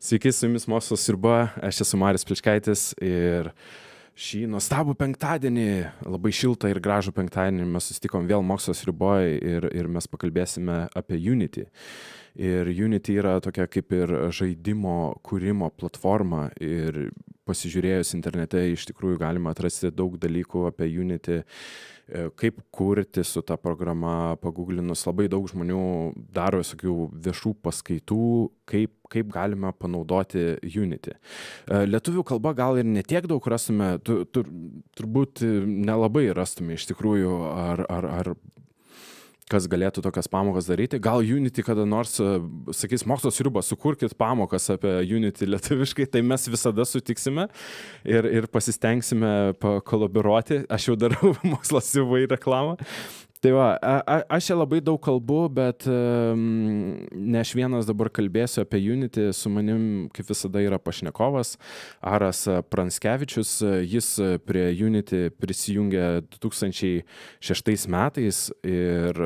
Sveiki, su jumis Mokslo sriuba, aš esu Marius Pličkaitis ir šį nuostabų penktadienį, labai šiltą ir gražų penktadienį mes susitikom vėl Mokslo sriuboje ir mes pakalbėsime apie Unity. Ir Unity yra tokia kaip ir žaidimo kūrimo platforma ir pasižiūrėjus internete iš tikrųjų galima atrasti daug dalykų apie Unity, kaip kurti su ta programa, paguglinus labai daug žmonių daro visokių viešų paskaitų, kaip galime panaudoti Unity. Lietuvių kalba gal ir netiek daug rastume, turbūt nelabai rastume iš tikrųjų, ar kas galėtų tokias pamokas daryti. Gal Unity kada nors sakys, Mokslo sriuba, sukurkit pamokas apie Unity lietuviškai, tai mes visada sutiksime ir pasistengsime pakolaboruoti. Aš jau darau Mokslo sriubai reklamą. Tai va, aš čia labai daug kalbu, bet ne aš vienas dabar kalbėsiu apie Unity. Su manim, kaip visada, yra pašnekovas Aras Pranskevičius. Jis prie Unity prisijungė 2006 metais ir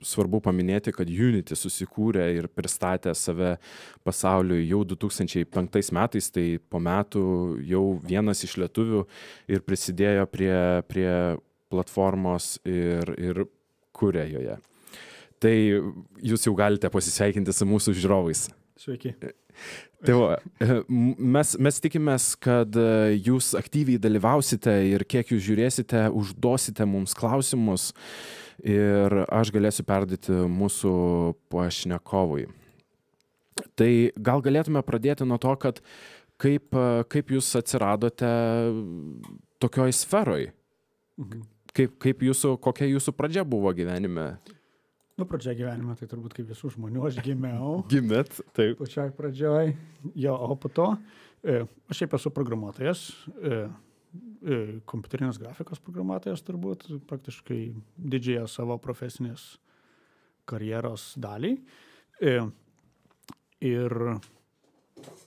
svarbu paminėti, kad Unity susikūrė ir pristatė save pasauliui jau 2005 metais, tai po metų jau vienas iš lietuvių ir prisidėjo prie platformos ir kuria joje. Tai jūs jau galite pasisveikinti su mūsų žiūrovais. Sveiki. Tai va, mes tikimės, kad jūs aktyviai dalyvausite ir kiek jūs žiūrėsite, užduosite mums klausimus ir aš galėsiu perduoti mūsų pašnekovui. Tai gal galėtume pradėti nuo to, kad kaip jūs atsiradote tokioj sferoj? Kokia jūsų pradžia buvo gyvenime? Pradžia gyvenime, tai turbūt kaip visų žmonių, aš gimiau. Gimėt, taip. Pačioj pradžioj. Jo, o po to, aš šiaip esu programuotojas, kompiuterinės grafikos programuotojas turbūt, praktiškai didžiąją savo profesinės karjeros dalį. Ir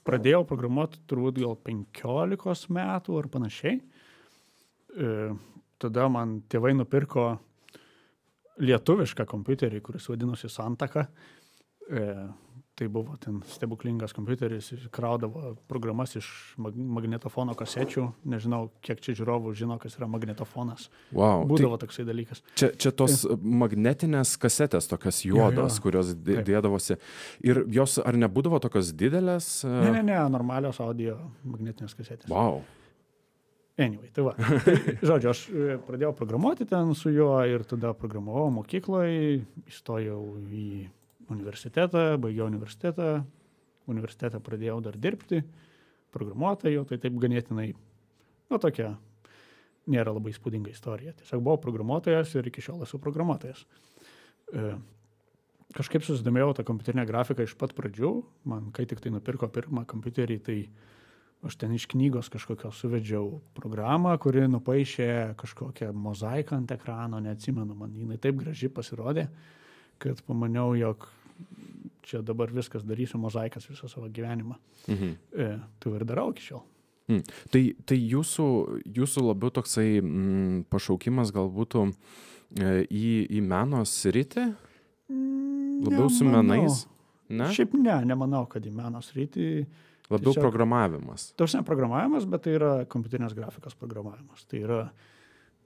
pradėjau programuoti turbūt gal 15 metų ar panašiai. Tada man tėvai nupirko lietuvišką kompiuterį, kuris vadinosi Santaka. Tai buvo ten stebuklingas kompiuteris, kraudavo programas iš magnetofono kasečių. Nežinau, kiek čia žiūrovų žino, kas yra magnetofonas. Wow, Būdavo toksai dalykas. Čia tos magnetinės kasetės, tokios juodos, kurios dėdavosi. Ir jos ar nebūdavo tokios didelės? Ne, normalios audio magnetinės kasetės. Wow. Anyway, tai va. Žodžiu, aš pradėjau programuoti ten su juo ir tada programavau mokykloje, įstojau į universitetą, baigiau universitetą. Universitetą pradėjau dar dirbti, programuotojų, tai taip ganėtinai, tokia nėra labai įspūdinga istorija. Tiesiog buvau programuotojas ir iki šiol esu programuotojas. Kažkaip susidomėjau tą kompiuterinę grafiką iš pat pradžių. Man, kai tik tai nupirko pirmą kompiuterį, tai aš ten iš knygos kažkokios suvedžiau programą, kuri nupaišė kažkokią mozaiką ant ekrano, neatsimenu, man jinai taip graži pasirodė, kad pamaniau, jog čia dabar viskas darysiu mozaikas visą savo gyvenimą. Tai ir darau iki šiol. Tai jūsų labiau toksai pašaukimas gal būtų į meno sritį? Labiau su menais? Ne? Šiaip nemanau, kad į meno sritį. Labiau tiesiog programavimas. Tarsi programavimas, bet tai yra kompiuterinės grafikos programavimas. Tai yra,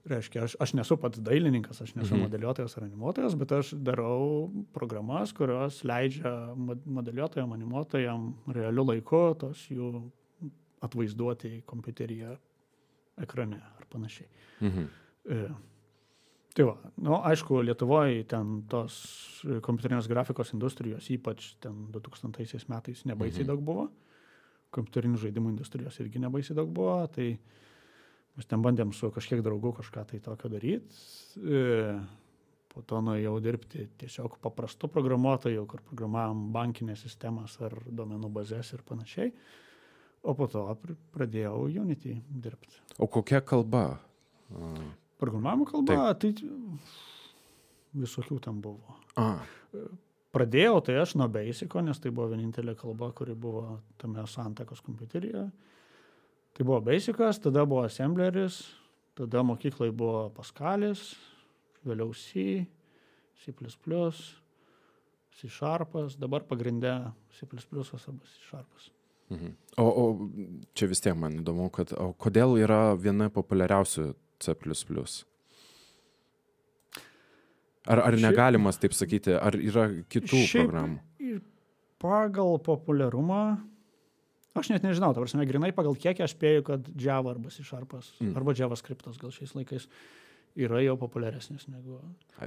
reiškia, aš nesu pats dailininkas, aš nesu modeliuotojas ar animuotojas, bet aš darau programas, kurios leidžia modeliuotojam, animuotojam realiu laiku tos jų atvaizduoti kompiuteryje ekrane ar panašiai. Tai va, aišku, Lietuvoje ten tos kompiuterinės grafikos industrijos, ypač ten 2000 metais nebaisiai daug buvo. Kompiuterinių žaidimų industrijos irgi nebaisiai daug buvo, tai mes ten bandėm su kažkiek draugų kažką tai tokio daryti. Po to nuėjau dirbti tiesiog paprastų programuotojų, kur programavom bankinės sistemas ar duomenų bazės ir panašiai. O po to pradėjau Unity dirbti. O kokia kalba? Programavimo kalba, tai visokių ten buvo. Pradėjau tai aš nuo Basico, nes tai buvo vienintelė kalba, kuri buvo tame Santakos kompiuteryje. Tai buvo Basicas, tada buvo Assembleris, tada mokyklai buvo Pascalis, vėliau C C++, C Sharpas, dabar pagrinde C++ arba C Sharpas. O čia vis tiek man įdomu, kodėl yra viena populiariausių C++? Ar negalimas taip sakyti, ar yra kitų programų? Pagal populiarumą, aš net nežinau, ta prasme, grinai pagal kiek aš spėju, kad Java arba C Sharpas, arba JavaScriptas gal šiais laikais yra jau populiaresnis negu...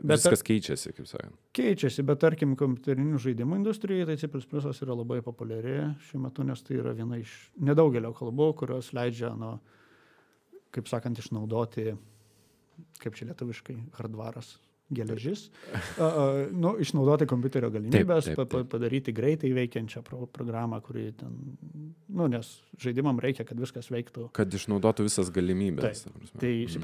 Viskas keičiasi, kaip sakant. Keičiasi, bet tarkim, kompiuterinių žaidimų industrijai, tai C++ yra labai populiari šiuo metu, nes tai yra viena iš nedaugelio kalbų, kurios leidžia, kaip sakant, išnaudoti, kaip čia lietuviškai, hardvaras, geležis, išnaudoti kompiuterio galimybės, padaryti greitai veikiančią programą, kuri ten, nes žaidimam reikia, kad viskas veiktų. Kad išnaudotų visas galimybės. Tai C++,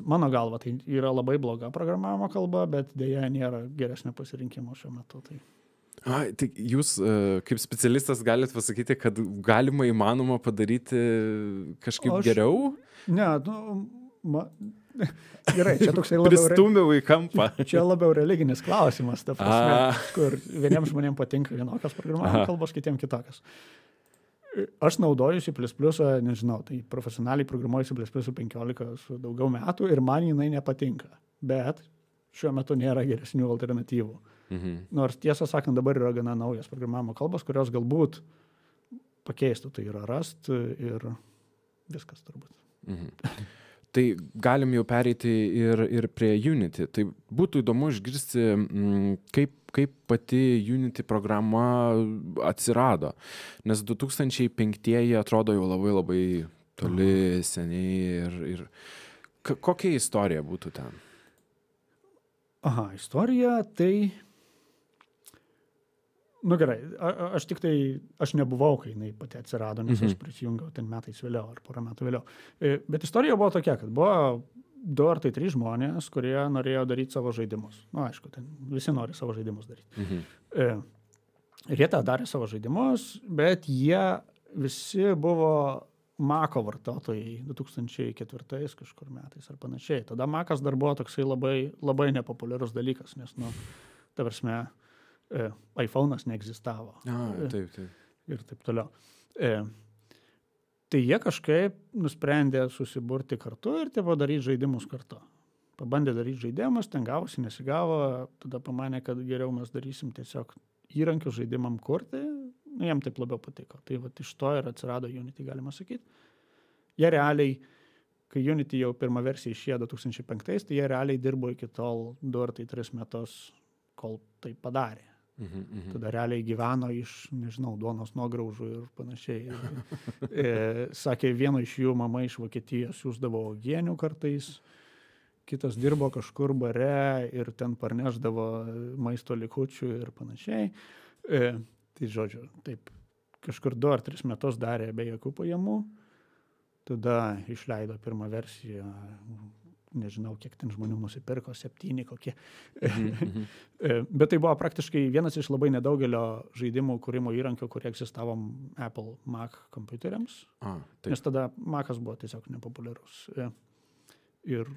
mano galva, tai yra labai bloga programavimo kalba, bet dėja nėra geresnio pasirinkimo šiuo metu. Tai jūs kaip specialistas galite pasakyti, kad galima įmanoma padaryti kažkaip geriau? Ne, gerai, čia toksai labiau... Pristūmiau į kampą. Čia labiau religinis klausimas, ta prasme, kur vieniems žmonėms patinka vienokios programavimo kalbos, kitiems kitokios. Aš naudoju C++, nežinau, tai profesionaliai programuoju C++ 15 su daugiau metų ir man jinai nepatinka, bet šiuo metu nėra geresnių alternatyvų. Nors tiesą sakant, dabar yra gana naujas programavimo kalbos, kurios galbūt pakeistų, tai yra Rust ir viskas turbūt. Tai galim jau pereiti ir prie Unity. Tai būtų įdomu išgirsti, kaip pati Unity programa atsirado. Nes 2005 atrodo jau labai labai toli, seniai. Ir kokia istorija būtų ten? Istorija tai... Gerai, aš nebuvau, kai jinai pati atsirado, nes aš prisijungiau ten metais vėliau ar porą metų vėliau. Bet istorija buvo tokia, kad buvo 2 ar 3 žmonės, kurie norėjo daryti savo žaidimus. Aišku, ten visi nori savo žaidimus daryti. Ir jie tą darė savo žaidimus, bet jie visi buvo Maco vartotojai 2004 kažkur metais ar panašiai. Tada Macas dar buvo toksai labai, labai nepopuliarus dalykas, nes, ta prasme, iPhone'as neegzistavo. Taip. Ir taip toliau. Tai jie kažkaip nusprendė susiburti kartu ir daryti žaidimus kartu. Pabandė daryti žaidimus, ten gavosi, nesigavo, tada pamanė, kad geriau mes darysim tiesiog įrankių žaidimam kurti, jiem taip labiau patiko. Tai iš to ir atsirado Unity, galima sakyti. Jie realiai, kai Unity jau pirmą versiją išėjo 2005, tai jie realiai dirbo iki tol 2 ar 3 metus, kol tai padarė. Tada realiai gyveno iš, nežinau, duonos nuograužų ir panašiai. Sakė, vieno iš jų mama iš Vokietijos siųsdavo uogienių kartais, kitas dirbo kažkur bare ir ten parnešdavo maisto likučių ir panašiai. Tai žodžiu, taip, kažkur 2 ar 3 metus darė be jokių pajamų, tada išleido pirmą versiją, nežinau, kiek ten žmonių nusipirko, 7 kokie. Bet tai buvo praktiškai vienas iš labai nedaugelio žaidimų kūrimo įrankių, kurie egzistavo Apple Mac kompiuteriams. Nes tada Macas buvo tiesiog nepopuliarus. Ir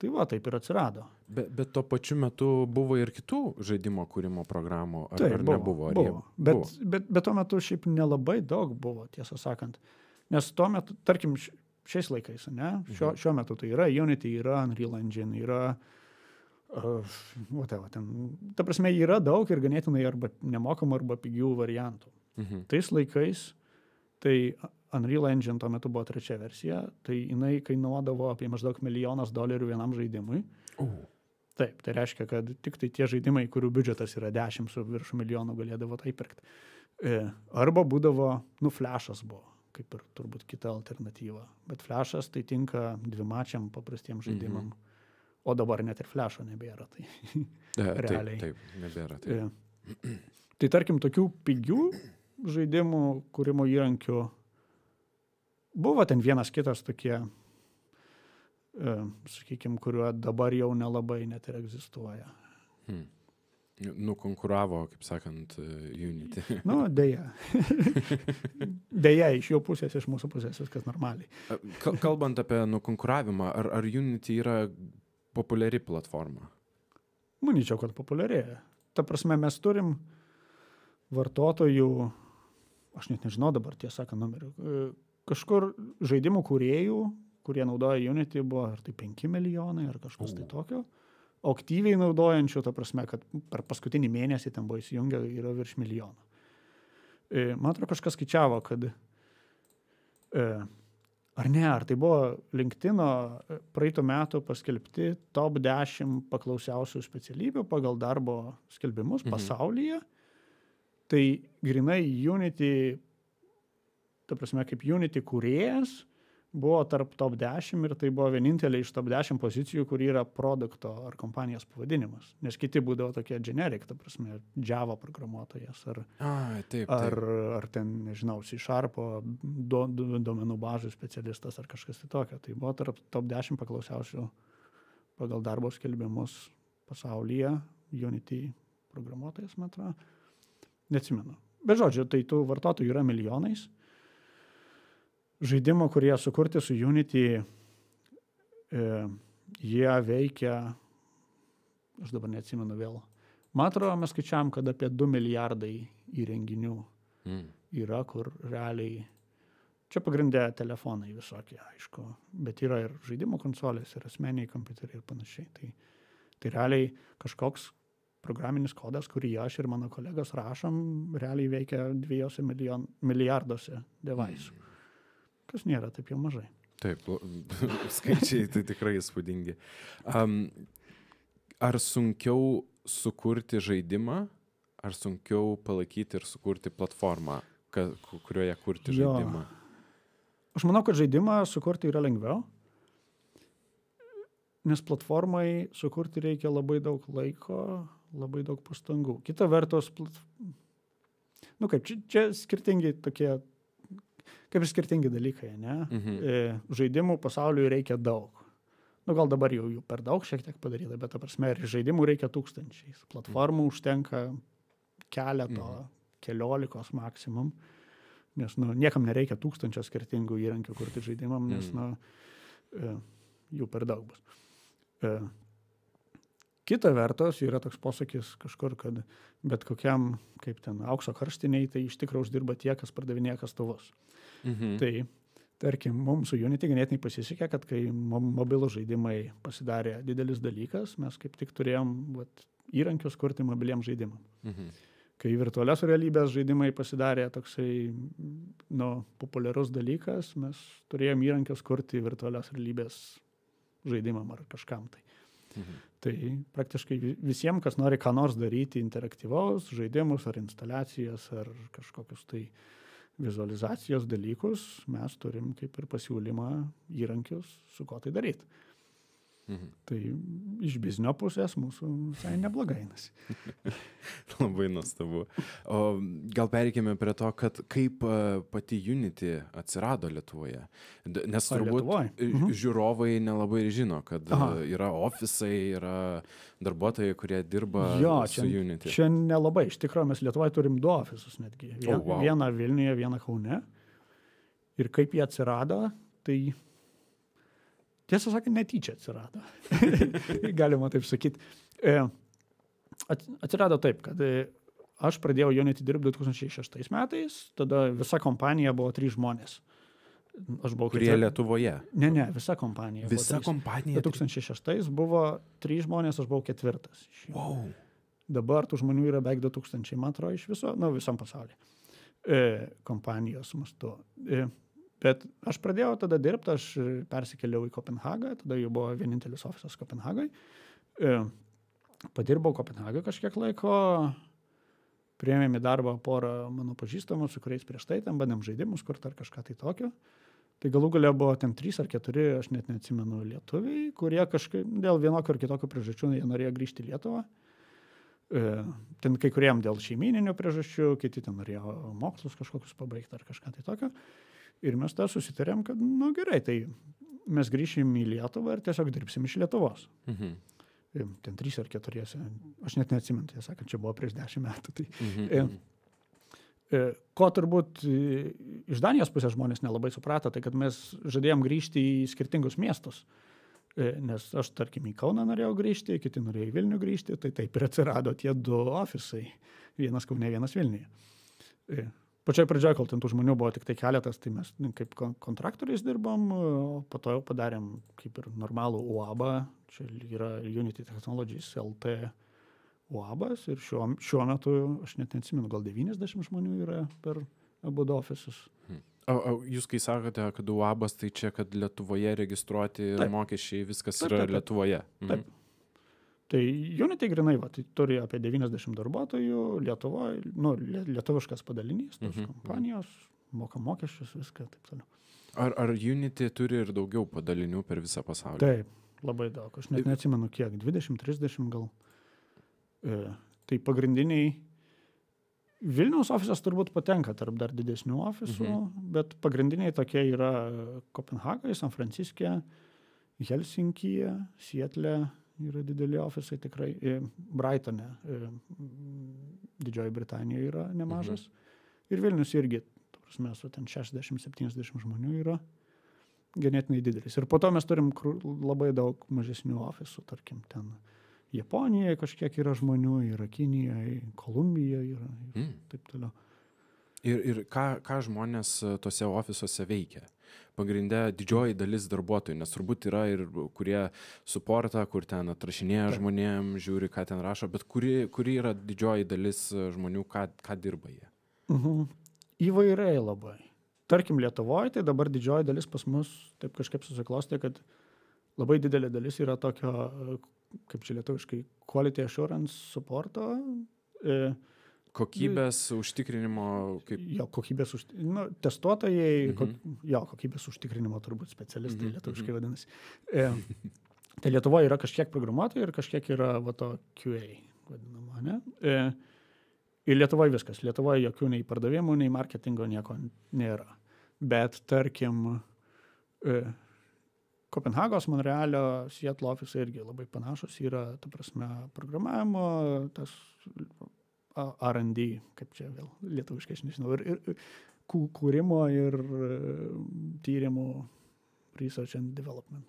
tai taip ir atsirado. Bet tuo pačiu metu buvo ir kitų žaidimo kūrimo programų, ar nebuvo? Buvo. Bet tuo metu šiaip nelabai daug buvo, tiesą sakant. Nes tuo metu, tarkim, šiais laikais, ne? Šiuo metu tai yra Unity, yra Unreal Engine, yra ta prasme, yra daug ir ganėtinai arba nemokamų, arba pigių variantų. Tais laikais, tai Unreal Engine tuo metu buvo 3 versija, tai jinai kainuodavo apie maždaug $1 milijonas vienam žaidimui. Taip, tai reiškia, kad tik tai tie žaidimai, kurių biudžetas yra 10 su virš milijonų, galėdavo tai pirkti. Arba būdavo, Flash'as buvo, kaip ir turbūt kita alternatyva. Bet Flash'as tai tinka dvimačiam paprastiem žaidimam. O dabar net ir Flash'o nebėra. Tai realiai. Taip, nebėra. Taip. Tai tarkim, tokių pigių žaidimų kūrimo įrankių buvo ten vienas kitas tokie, sakykime, kuriuo dabar jau nelabai net ir egzistuoja. Nukonkuravo, kaip sakant, Unity. Deja. Deja, iš jų pusės, iš mūsų pusės viskas normaliai. Kalbant apie nukonkuravimą, ar Unity yra populiari platforma? Manyčiau, kad populiarėja. Ta prasme, mes turim vartotojų, aš net nežinau dabar tiesą sakant numerių, kažkur žaidimų kūrėjų, kurie naudoja Unity, buvo ar tai 5 milijonai, ar kažkas tai tokio. O aktyviai naudojančių, ta prasme, kad per paskutinį mėnesį ten buvo įsijungę, yra virš milijono. Man atrodo, kažkas skaičiavo, kad ar tai buvo LinkedIn'o praeitų metų paskelbti top 10 paklausiausių specialybių pagal darbo skelbimus pasaulyje. Tai grinai Unity, ta prasme, kaip Unity kūrėjas, buvo tarp top 10 ir tai buvo vienintelė iš top 10 pozicijų, kur yra produkto ar kompanijos pavadinimas. Nes kiti būdavo tokie generic, ta prasme, Java programuotojas ar ten, nežinau, C# duomenų bazių specialistas ar kažkas tai tokio. Tai buvo tarp top 10 paklausiausių pagal darbo skelbimus pasaulyje Unity programuotojas, man atrodo. Neatsimenu. Bet žodžiu, tai tų vartotojų yra milijonais. Žaidimų, kurie sukurti su Unity, jie veikia, aš dabar neatsimenu vėl. Man atrodo, mes skaičiavam, kad apie 2 milijardai įrenginių yra, kur realiai, čia pagrindė telefonai visokie, aišku, bet yra ir žaidimų konsolės, ir asmeniai kompiuteriai ir panašiai. Tai realiai kažkoks programinis kodas, kurį aš ir mano kolegos rašom, realiai veikia 2 milijarduose devaisų. Kas nėra taip jau mažai. Taip, skaičiai tai tikrai įspūdingi. Ar sunkiau sukurti žaidimą, ar sunkiau palaikyti ir sukurti platformą, kurioje kurti žaidimą? Aš manau, kad žaidimą sukurti yra lengviau, nes platformai sukurti reikia labai daug laiko, labai daug pastangų. Kita vertus, čia skirtingi tokie, kaip ir skirtingi dalykai, ne? Žaidimų pasauliui reikia daug. Gal dabar jau jų per daug šiek tiek padaryta, bet ta prasme, ir žaidimų reikia tūkstančiais. Platformų užtenka keliolikos maksimum, nes niekam nereikia 1000 skirtingų įrankių kurti žaidimam, nes jų per daug bus. Kita vertus yra toks posakis kažkur, kad bet kokiam, kaip ten, aukso karštiniai, tai iš tikrųjų uždirba tie, kas pardavinėja kastuvus. Tai, tarkim, mums su Unity ganėtinai pasisekė, kad kai mobilų žaidimai pasidarė didelis dalykas, mes kaip tik turėjom įrankius kurti mobiliems žaidimam. Kai virtualios realybės žaidimai pasidarė toksai populiarus dalykas, mes turėjom įrankius kurti virtualios realybės žaidimam ar kažkam tai. Tai praktiškai visiems, kas nori ką nors daryti interaktyvaus, žaidimus ar instaliacijas ar kažkokius tai vizualizacijos dalykus, mes turim kaip ir pasiūlymą įrankius, su ko tai daryti. Tai iš biznio pusės mūsų visai neblogai einasi. Labai nuostabu. O gal pereikime prie to, kad kaip pati Unity atsirado Lietuvoje. Nes turbūt žiūrovai nelabai žino, kad yra ofisai, yra darbuotojai, kurie dirba su Unity. Čia nelabai. Iš tikrųjų, mes Lietuvoje turim 2 ofisus netgi. Vieną Vilniuje, vieną Kaune. Ir kaip jie atsirado, tai tiesą sakant, netyčia atsirado. Galima taip sakyti. Atsirado taip, kad aš pradėjau Unity dirbti 2006 metais, tada visa kompanija buvo 3 žmonės. Kurie Lietuvoje? Ne, visa kompanija. Visa kompanija? 2006 buvo 3 žmonės, aš buvau 4. Wow. Dabar tų žmonių yra beveik 2000, man atrodo, iš viso, visam pasaulyje. Kompanijos mastu. Bet aš pradėjau tada dirbti, aš persikėliau į Kopenhagą, tada jau buvo vienintelis ofisas Kopenhagai. Padirbau Kopenhagą kažkiek laiko, priėmėm į darbą porą mano pažįstamų, su kuriais prieš tai ten bandėm žaidimus kurti ar kažką tai tokio. Tai galų gale buvo ten 3 ar 4, aš net neatsimenu, lietuviai, kurie kažkaip dėl vienokio ar kitokio priežasčių jie norėjo grįžti į Lietuvą. Ten kai kuriem dėl šeimininių priežasčių, kiti ten norėjo mokslus kažkokius pabaigti ar kažką tai tokio. Ir mes tą susitarėm, kad, gerai, tai mes grįšim į Lietuvą ir tiesiog dirbsim iš Lietuvos. Ten 3 ar 4, aš net neatsimenu, tai sakant, čia buvo prieš 10 metų. Tai, ko turbūt iš Danijos pusės žmonės nelabai suprato, tai kad mes žadėjom grįžti į skirtingus miestus. Nes aš, tarkim, į Kauną norėjau grįžti, kiti norėjo į Vilnių grįžti, tai taip ir atsirado tie 2 ofisai. Vienas Kaune, vienas Vilniuje. Pačioj pradžioje, kol ten tų žmonių buvo tik tai keletas, tai mes kaip kontraktoriais dirbom, o po to jau padarėm kaip ir normalų UABą. Čia yra Unity Technologies LT UABas ir šiuo metu, aš net neatsimenu, gal 90 žmonių yra per abu ofisus. O jūs kai sakote, kad UABas, tai čia, kad Lietuvoje registruoti mokesčiai, viskas yra Lietuvoje? Taip. Tai Unity grinai, tai turi apie 90 darbuotojų Lietuvoje, lietuviškas padalinys, tos kompanijos, moka mokesčius, viską, taip toliau. Ar Unity turi ir daugiau padalinių per visą pasaulį? Taip, labai daug. Aš net neatsimenu kiek, 20-30 gal. Tai pagrindiniai Vilniaus ofisas turbūt patenka tarp dar didesnių ofisų, bet pagrindiniai tokie yra Kopenhagoje, San Franciske, Helsinkyje, Sietle yra dideli ofisai tikrai, Brightone, Didžioji Britanijoje yra nemažas. Ir Vilnius irgi, prasme, su ten 60-70 žmonių yra ganėtinai didelis. Ir po to mes turim labai daug mažesnių ofisų, tarkim, ten Japonijoje kažkiek yra žmonių, yra Kinijoje, Kolumbijoje yra ir taip toliau. Ir ką žmonės tose ofisuose veikia? Pagrinde didžioji dalis darbuotojų, nes turbūt yra ir kurie suportą, kur ten atrašinėja žmonėm, žiūri, ką ten rašo, bet kuri yra didžioji dalis žmonių, ką dirba jie? Įvairiai labai. Tarkim, Lietuvoje, tai dabar didžioji dalis pas mus taip kažkaip susiklostė, kad labai didelė dalis yra tokio, kaip čia lietuviškai, quality assurance supporto. Kokybės užtikrinimo kaip... Jo, kokybės testuotojai, kokybės užtikrinimo turbūt specialistai lietuviškai vadinasi. Tai Lietuvoje yra kažkiek programuotojų ir kažkiek yra to QA vadinama, ne? Ir Lietuvoje viskas. Lietuvoje jokių nei pardavimų, nei marketingo nieko nėra. Bet tarkim, Kopenhagos, Monrealio, Seattle ofisai irgi labai panašus yra, ta prasme, programavimo, tas R&D, kaip čia vėl lietuviškai, aš nežinau, ir kūrimo ir tyrimų research and development.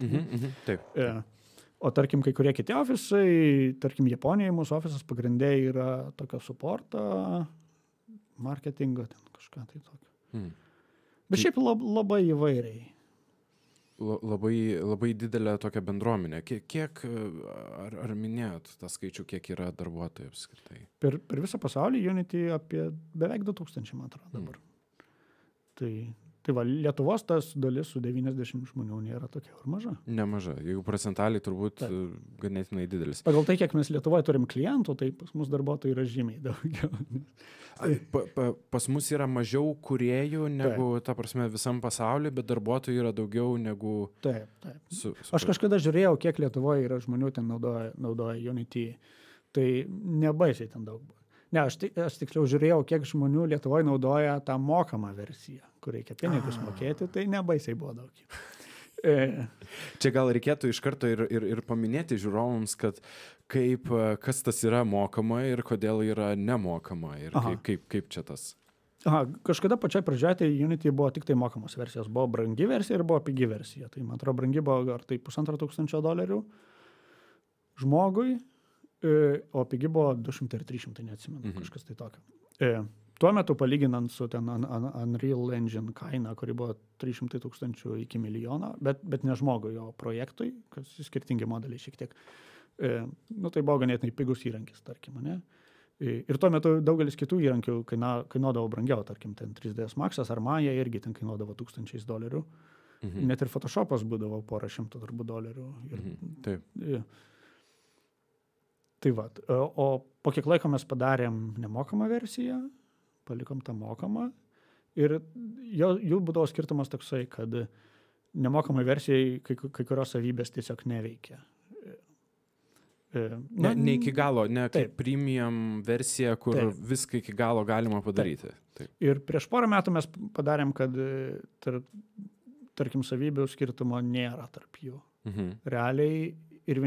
Taip. O tarkim, kai kurie kiti ofisai, tarkim, Japonijoje mūsų ofisas pagrindė yra tokio supporto, marketingo, ten kažką tai tokio. Bet šiaip labai įvairiai. Labai didelė tokia bendruomenė. Kiek, ar minėjot tą skaičių, kiek yra darbuotojų apskritai? Per visą pasaulį Unity apie beveik 2000, man atrodo, dabar. Tai va, Lietuvos tas dalis su 90 žmonių nėra tokia ir maža. Nemaža. Jeigu procentaliai turbūt ganėtinai didelis. Pagal tai, kiek mes Lietuvoje turim klientų, tai pas mus darbuotojų yra žymiai daugiau. Pas mus yra mažiau kūrėjų negu, ta prasme, visam pasauliu, bet darbuotojų yra daugiau negu... Taip. Aš kažkada žiūrėjau, kiek Lietuvoje yra žmonių ten naudoja Unity. Tai nebaisiai ten daug buvo. Ne, aš tiksliau žiūrėjau, kiek žmonių Lietuvoje naudoja tą mokamą versiją, kur reikia pinigus mokėti, tai nebaisiai buvo daug. Čia gal reikėtų iš karto ir paminėti žiūrovams, kad kas tas yra mokama ir kodėl yra nemokama ir kaip čia tas. Kažkada pačioj pradžioje tai Unity buvo tik tai mokamos versijos. Buvo brangi versija ir buvo pigi versija. Tai man atrodo, brangi buvo ar tai $1500 žmogui. O pigi buvo 200 ir 300, neatsimenu, kažkas tai tokio. Tuo metu palyginant su ten Unreal Engine kaina, kuri buvo 300,000 iki milijono, bet ne žmogui, o projektui, kas skirtingi modeliai šiek tiek. Tai buvo ganėtinai pigus įrankis, tarkim, ne? Ir tuo metu daugelis kitų įrankių kainuodavo brangiau, tarkim, ten 3ds Maxas ar Maya irgi ten kainuodavo $1000. Net ir Photoshopas būdavo porą šimtų $100. Taip. Tai va, o po kiek laiko mes padarėm nemokamą versiją, palikom tą mokamą ir jų būdavo skirtumas toksai, kad nemokamai versijai kai kurios savybės tiesiog neveikia. Ne iki galo, ne kaip premium versija, kur viską iki galo galima padaryti. Taip. Ir prieš porą metų mes padarėm, kad tarkim savybių skirtumo nėra tarp jų. Realiai ir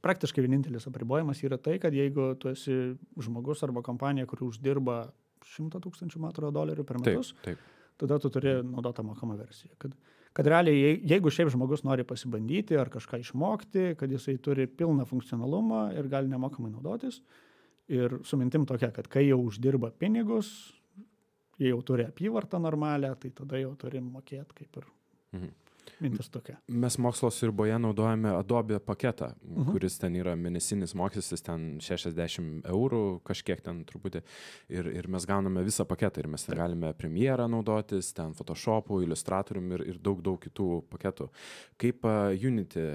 praktiškai vienintelis apribojimas yra tai, kad jeigu tu esi žmogus arba kompanija, kuri uždirba $100,000 per metus, tada tu turi naudoti mokamą versiją. kad realiai, jeigu šiaip žmogus nori pasibandyti ar kažką išmokti, kad jisai turi pilną funkcionalumą ir gali nemokamai naudotis, ir su mintim tokia, kad kai jau uždirba pinigus, jie jau turi apyvartą normalią, tai tada jau turi mokėti kaip ir mintis tokia. Mes mokslo sriuboje naudojame Adobe paketą, kuris ten yra mėnesinis mokestis, ten 60 eurų, kažkiek ten truputį. Ir mes gauname visą paketą ir mes ten galime Premierą naudotis, ten Photoshop'u, Illustratorium ir daug kitų paketų. Kaip Unity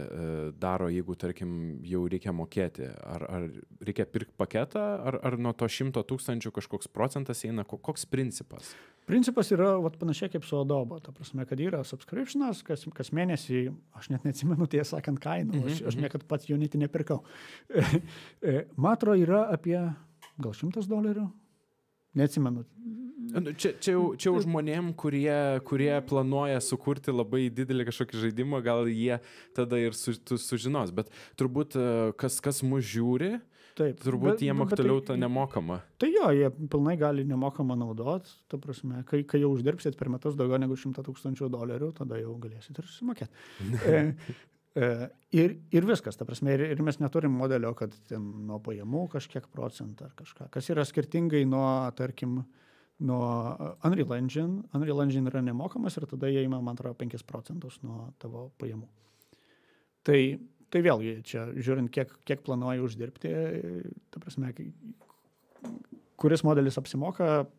daro, jeigu, tarkim, jau reikia mokėti? Ar reikia pirkti paketą, ar nuo to 100 000 kažkoks procentas eina? Koks principas? Principas yra panašiai kaip su Adobe, ta prasme, kad yra subscriptionas, kas mėnesį, aš net neatsimenu, tiesą sakant, kainų, aš niekad pats Unity nepirkau. Matro yra apie gal $100, neatsimenu. Čia jau žmonėm, kurie planuoja sukurti labai didelį kažkokį žaidimą, gal jie tada ir sužinos, bet turbūt kas mus žiūri, Taip, turbūt jiem aktualiau tą nemokamą. Tai jo, jie pilnai gali nemokamą naudot, ta prasme, kai jau uždirbsit per metus daugiau negu $100 000, tada jau galėsit ir susimokėti. Ir viskas, ta prasme, ir mes neturim modelio, kad nuo pajamų kažkiek procentą ar kažką, kas yra skirtingai nuo, tarkim, nuo Unreal Engine. Unreal Engine yra nemokamas ir tada jie ima, man atrodo, 5% nuo tavo pajamų. Tai vėlgi, čia žiūrint, kiek planuoji uždirbti, ta prasme, kuris modelis apsimoka,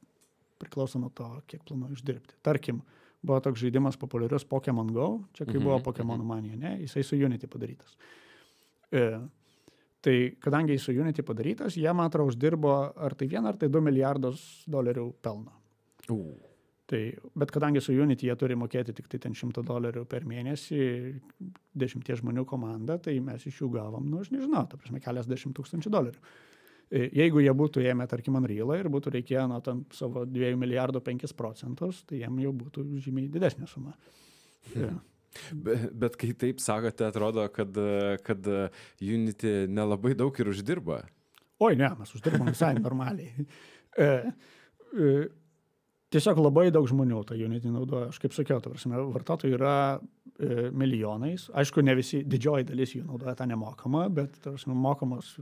priklauso nuo to, kiek planuoji uždirbti. Tarkim, buvo toks žaidimas populiarius Pokemon Go, čia kai buvo Pokemon Mania, ne, jisai su Unity padarytas. Tai kadangi jis su Unity padarytas, jie, man atrodo, uždirbo ar tai $1 ar tai $2 milijardus pelno. Bet kadangi su Unity jie turi mokėti tik tai ten $100 per mėnesį 10 žmonių komandą, tai mes iš jų gavom, aš nežinau, ta prasme, keliasdešimt $1000. Jeigu jie būtų ėmę, tarkim, Unrealą ir būtų reikėję nuo tam savo 2 milijardų 5%, tai jiem jau būtų žymiai didesnė suma. Bet kai taip sakote, atrodo, kad Unity nelabai daug ir uždirba. Oi, ne, mes uždirbam visai normaliai. Tiesiog labai daug žmonių tą Unity naudoja. Aš kaip sakiau, ta prasme, vartotojų yra milijonais. Aišku, ne visi, didžioji dalis jų naudoja tą nemokamą, bet ta prasme, mokamos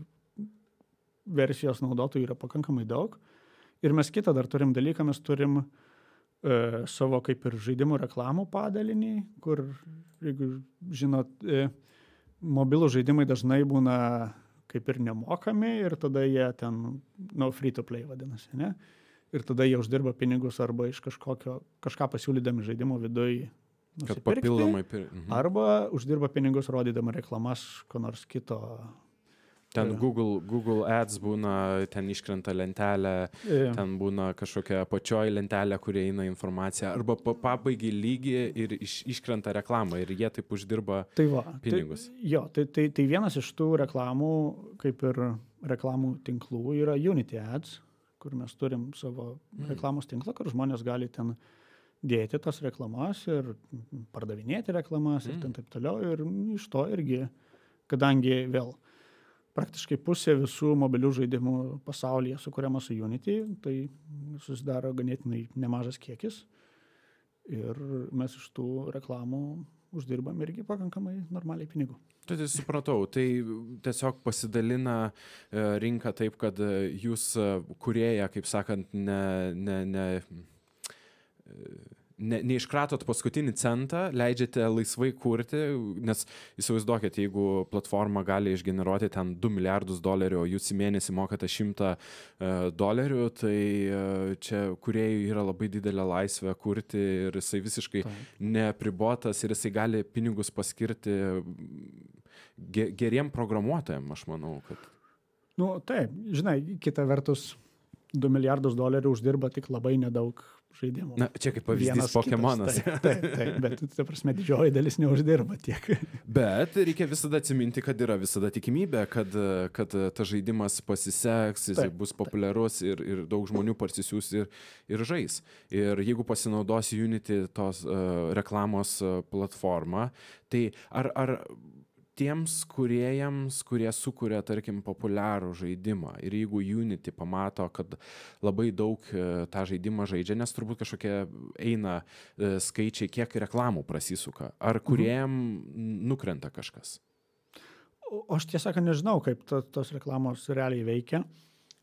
versijos naudotojų yra pakankamai daug. Ir mes kitą dar turim dalyką, mes turim savo kaip ir žaidimų reklamų padalinį, kur, jeigu žinot, mobilų žaidimai dažnai būna kaip ir nemokami ir tada jie ten, free to play vadinasi, ne? Ir tada jie uždirba pinigus arba iš kažką pasiūlydami žaidimo viduj nusipirkti, arba uždirba pinigus rodydami reklamas ko nors kito. Ten Google Ads būna, ten iškrenta lentelė, ten būna kažkokia apačioji lentelė, kurie eina informacija, arba pabaigia lygį ir iškrenta reklamą ir jie taip uždirba pinigus. Tai vienas iš tų reklamų, kaip ir reklamų tinklų, yra Unity Ads, kur mes turim savo reklamos tinklą, kur žmonės gali ten dėti tas reklamas ir pardavinėti reklamas ir ten taip toliau. Ir iš to irgi, kadangi vėl praktiškai pusė visų mobilių žaidimų pasaulyje sukuriama su Unity, tai susidaro ganėtinai nemažas kiekis. Ir mes iš tų reklamų uždirbam irgi pakankamai normaliai pinigų. Tai supratau, tai tiesiog pasidalina rinka taip, kad jūs kūrėja, kaip sakant, neiškratot paskutinį centą, leidžiate laisvai kurti, nes įsivaizduokit, jeigu platforma gali išgeneruoti ten $2 milijardus, o jūs į mėnesį mokate $100, tai čia kūrėjui yra labai didelė laisvė kurti ir jisai visiškai neapribotas ir jisai gali pinigus paskirti geriem programuotojam, aš manau, kad... Taip, žinai, kita vertus, $2 milijardus uždirba tik labai nedaug žaidimų. Na, čia kaip pavyzdys Pokemonas. Taip, bet, ta prasme, didžioji dalis neuždirba tiek. Bet reikia visada atsiminti, kad yra visada tikimybė, kad tas žaidimas pasiseks, jis bus populiarus ir daug žmonių parsisiūs ir žais. Ir jeigu pasinaudos Unity tos reklamos platformą, tai ar tiems kūrėjams, kurie sukuria, tarkim, populiarų žaidimą ir jeigu Unity pamato, kad labai daug tą žaidimą žaidžia, nes turbūt kažkokie eina skaičiai, kiek reklamų prasisuka, ar kūrėjam nukrenta kažkas? Aš tiesą sakant nežinau, kaip tos reklamos realiai veikia.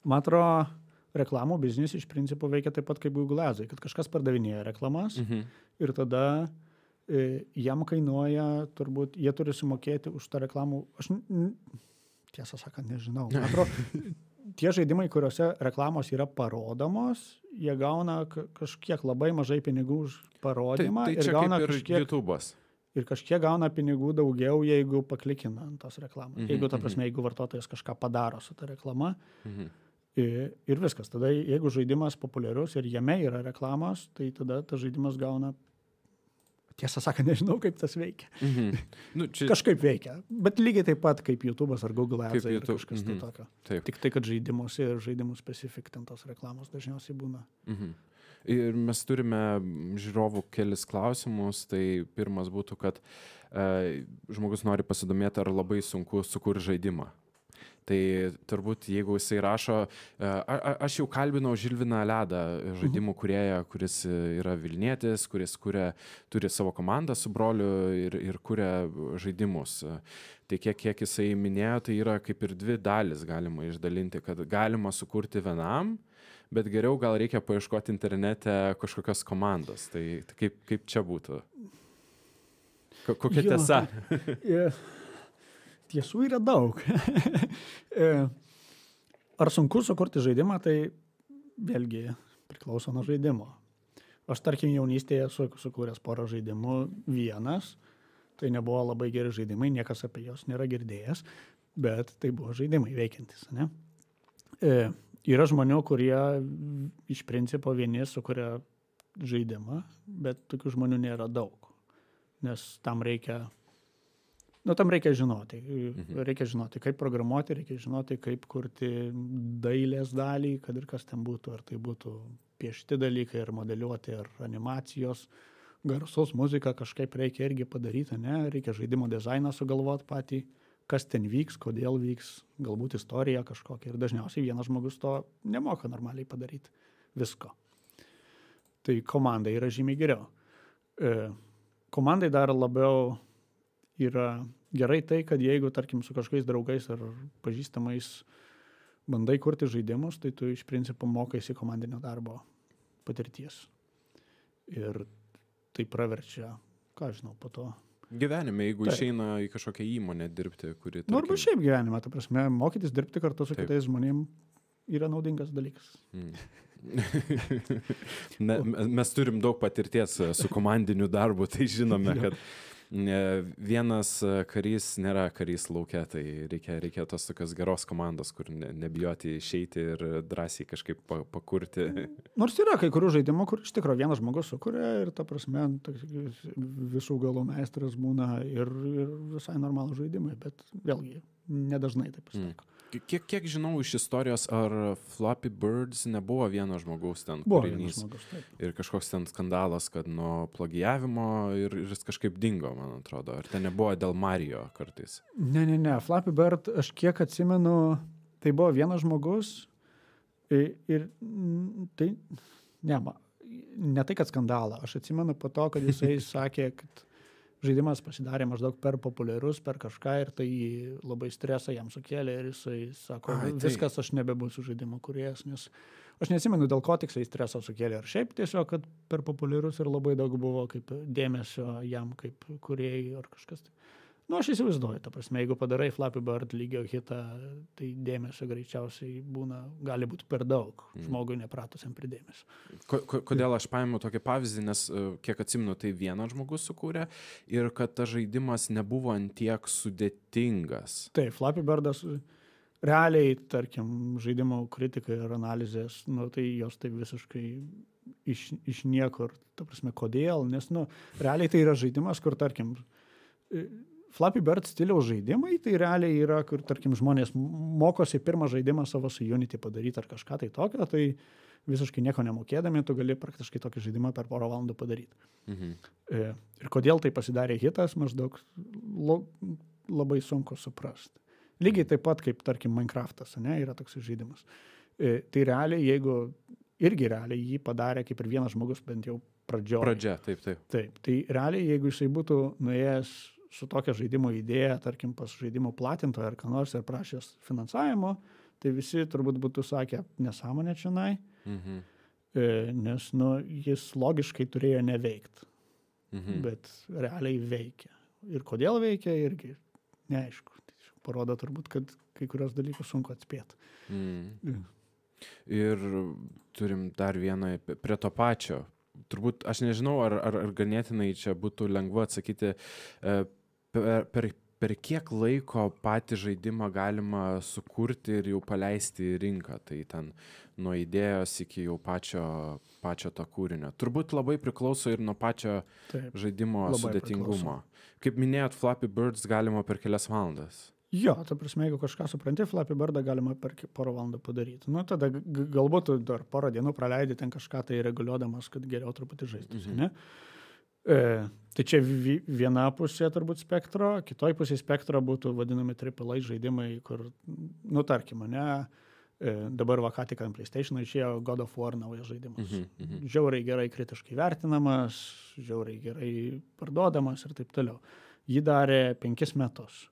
Man atrodo, reklamų biznis iš principo veikia taip pat kaip Google Ads, kad kažkas pardavinėja reklamas ir tada jam kainuoja, turbūt, jie turi sumokėti už tą reklamų. Aš tiesą sakant nežinau. Man atrodo, tie žaidimai, kuriuose reklamos yra parodomos, jie gauna kažkiek labai mažai pinigų už parodymą. Tai čia gauna kaip ir YouTube'as. Ir kažkiek gauna pinigų daugiau, jeigu paklikina ant tos reklamos. Jeigu, ta prasme, jeigu vartotojas kažką padaro su ta reklama. Ir viskas. Tada, jeigu žaidimas populiarus ir jame yra reklamos, tai tada tas žaidimas gauna. Tiesą sakant, nežinau, kaip tas veikia. Kažkaip veikia. Bet lygiai taip pat kaip YouTube'as ar Google Ads ar kažkas tai tokio. Tik tai, kad žaidimus ir žaidimų specifik ten tos reklamos dažniausiai būna. Ir mes turime žiūrovų kelis klausimus. Tai pirmas būtų, kad žmogus nori pasidomėti, ar labai sunku sukurti žaidimą. Tai turbūt, jeigu jisai rašo, aš jau kalbinau Žilviną Ledą, žaidimų kūrėją, kuris yra Vilnietis, kuris turi savo komandą su broliu ir kuria žaidimus. Tai kiek jisai minėjo, tai yra kaip ir dvi dalis galima išdalinti, kad galima sukurti vienam, bet geriau gal reikia paieškoti internete kažkokios komandos. Tai kaip čia būtų? Kokia tiesa? Tiesų yra daug. Ar sunku sukurti žaidimą, tai vėlgi priklauso nuo žaidimo. Aš, tarkim, jaunystėje sukūręs porą žaidimų vienas, tai nebuvo labai geri žaidimai, niekas apie juos nėra girdėjęs, bet tai buvo žaidimai veikiantis. Ne? Yra žmonių, kurie iš principo vieni sukuria žaidimą, bet tokių žmonių nėra daug, nes tam reikia žinoti. Reikia žinoti, kaip programuoti, reikia žinoti, kaip kurti dailės dalį, kad ir kas ten būtų. Ar tai būtų piešti dalykai, ar modeliuoti, ar animacijos, garsus, muzika kažkaip reikia irgi padaryti, ne? Reikia žaidimo dizainą sugalvoti patį, kas ten vyks, kodėl vyks, galbūt istorija kažkokia. Ir dažniausiai vienas žmogus to nemoka normaliai padaryti visko. Tai komandai yra žymiai geriau. Komandai dar labiau yra gerai tai, kad jeigu, tarkim, su kažkokiais draugais ar pažįstamais bandai kurti žaidimus, tai tu iš principo mokaisi komandinio darbo patirties. Ir tai praverčia, ką žinau, po to. Gyvenime, jeigu išeina į kažkokią įmonę dirbti, kuri... Nu, arba šiaip gyvenime, ta prasme, mokytis dirbti kartu su kitais žmonėm yra naudingas dalykas. Mes turim daug patirties su komandiniu darbu, tai žinome, kad vienas karys nėra karys lauke, tai reikia tos tokios geros komandos, kur nebijoti išeiti ir drąsiai kažkaip pakurti. Nors yra kai kurių žaidimų, kur iš tikrųjų vienas žmogus sukuria ir ta prasme visų galų meistras būna ir visai normalų žaidimai, bet vėlgi nedažnai taip pasitaiko. Kiek žinau iš istorijos, ar Flappy Birds nebuvo vieno žmogaus ten buvo kūrinys žmogus, ir kažkoks ten skandalas, kad nuo plagijavimo ir jis kažkaip dingo, man atrodo. Ar ten nebuvo dėl Mario kartais? Ne. Flappy Bird, aš kiek atsimenu, tai buvo vienas žmogus ir tai, ne tai, kad skandalą. Aš atsimenu po to, kad jisai sakė, kad žaidimas pasidarė maždaug per populiarus, per kažką ir tai labai stresą jam sukėlė ir jisai sako, viskas, aš nebebūsiu žaidimo kūrėjas, nes aš neatsimenu, dėl ko tiksliai stresą sukėlė. Ar šiaip tiesiog, kad per populiarus ir labai daug buvo kaip dėmesio jam kaip kūrėjai ar kažkas. Nu, aš įsivaizduoju, ta prasme, jeigu padarai Flappy Bird lygio hitą, tai dėmesio greičiausiai gali būti per daug žmogui nepratusiam prie dėmesio. Kodėl aš paėmiau tokį pavyzdį, nes kiek atsimenu, tai vienas žmogus sukūrė ir kad tas žaidimas nebuvo antiek sudėtingas. Taip, Flappy Birdas realiai, tarkim, žaidimo kritikai ir analizės, nu, tai jos tai visiškai iš niekur, ta prasme, kodėl, nes, nu, realiai tai yra žaidimas, kur, tarkim, Flappy Bird stiliaus žaidimai, tai realiai yra, kur, tarkim, žmonės mokosi pirmą žaidimą savo su Unity padaryti ar kažką tai tokio, tai visiškai nieko nemokėdami, tu gali praktiškai tokį žaidimą per porą valandų padaryti. Ir kodėl tai pasidarė hitas, maždaug labai sunku suprasti. Lygiai taip pat, kaip, tarkim, Minecraftas, ne, yra toks žaidimas. Tai realiai, irgi realiai jį padarė kaip ir vienas žmogus, bent jau Pradžia, taip. Taip, tai realiai, jeigu jisai būtų nuėjęs su tokia žaidimo idėja, tarkim, pas žaidimo platintoją ar ką nors ir prašęs finansavimo, tai visi turbūt būtų sakę nesąmonę čionai, nes jis logiškai turėjo neveikti, bet realiai veikia. Ir kodėl veikia, irgi neaišku. Tai parodo turbūt, kad kai kurios dalykus sunku atspėti. Ir turim dar vieną prie to pačio. Turbūt, aš nežinau, ar ganėtinai čia būtų lengva atsakyti, per kiek laiko patį žaidimą galima sukurti ir jau paleisti į rinką, tai ten nuo idėjos iki jau pačio to kūrinio. Turbūt labai priklauso ir nuo pačio žaidimo sudėtingumo. Kaip minėjot, Flappy Birds galima per kelias valandas. Jo, ta prasme, jeigu kažką supranti, Flappy Birdą galima per porą valandų padaryti. Nu, tada galbūt dar porą dienų praleidi ten kažką tai reguliuodamas, kad geriau truputį žaistųsi, ne? Tai čia viena pusė turbūt spektro, kitoj pusė spektro būtų vadinami AAA žaidimai, kur, nu, tarkim, ne, dabar va ką tik ant PlayStation išėjo God of War naujas žaidimas. Žiauriai gerai kritiškai vertinamas, žiauriai gerai parduodamas ir taip toliau. Jį darė 5 metus.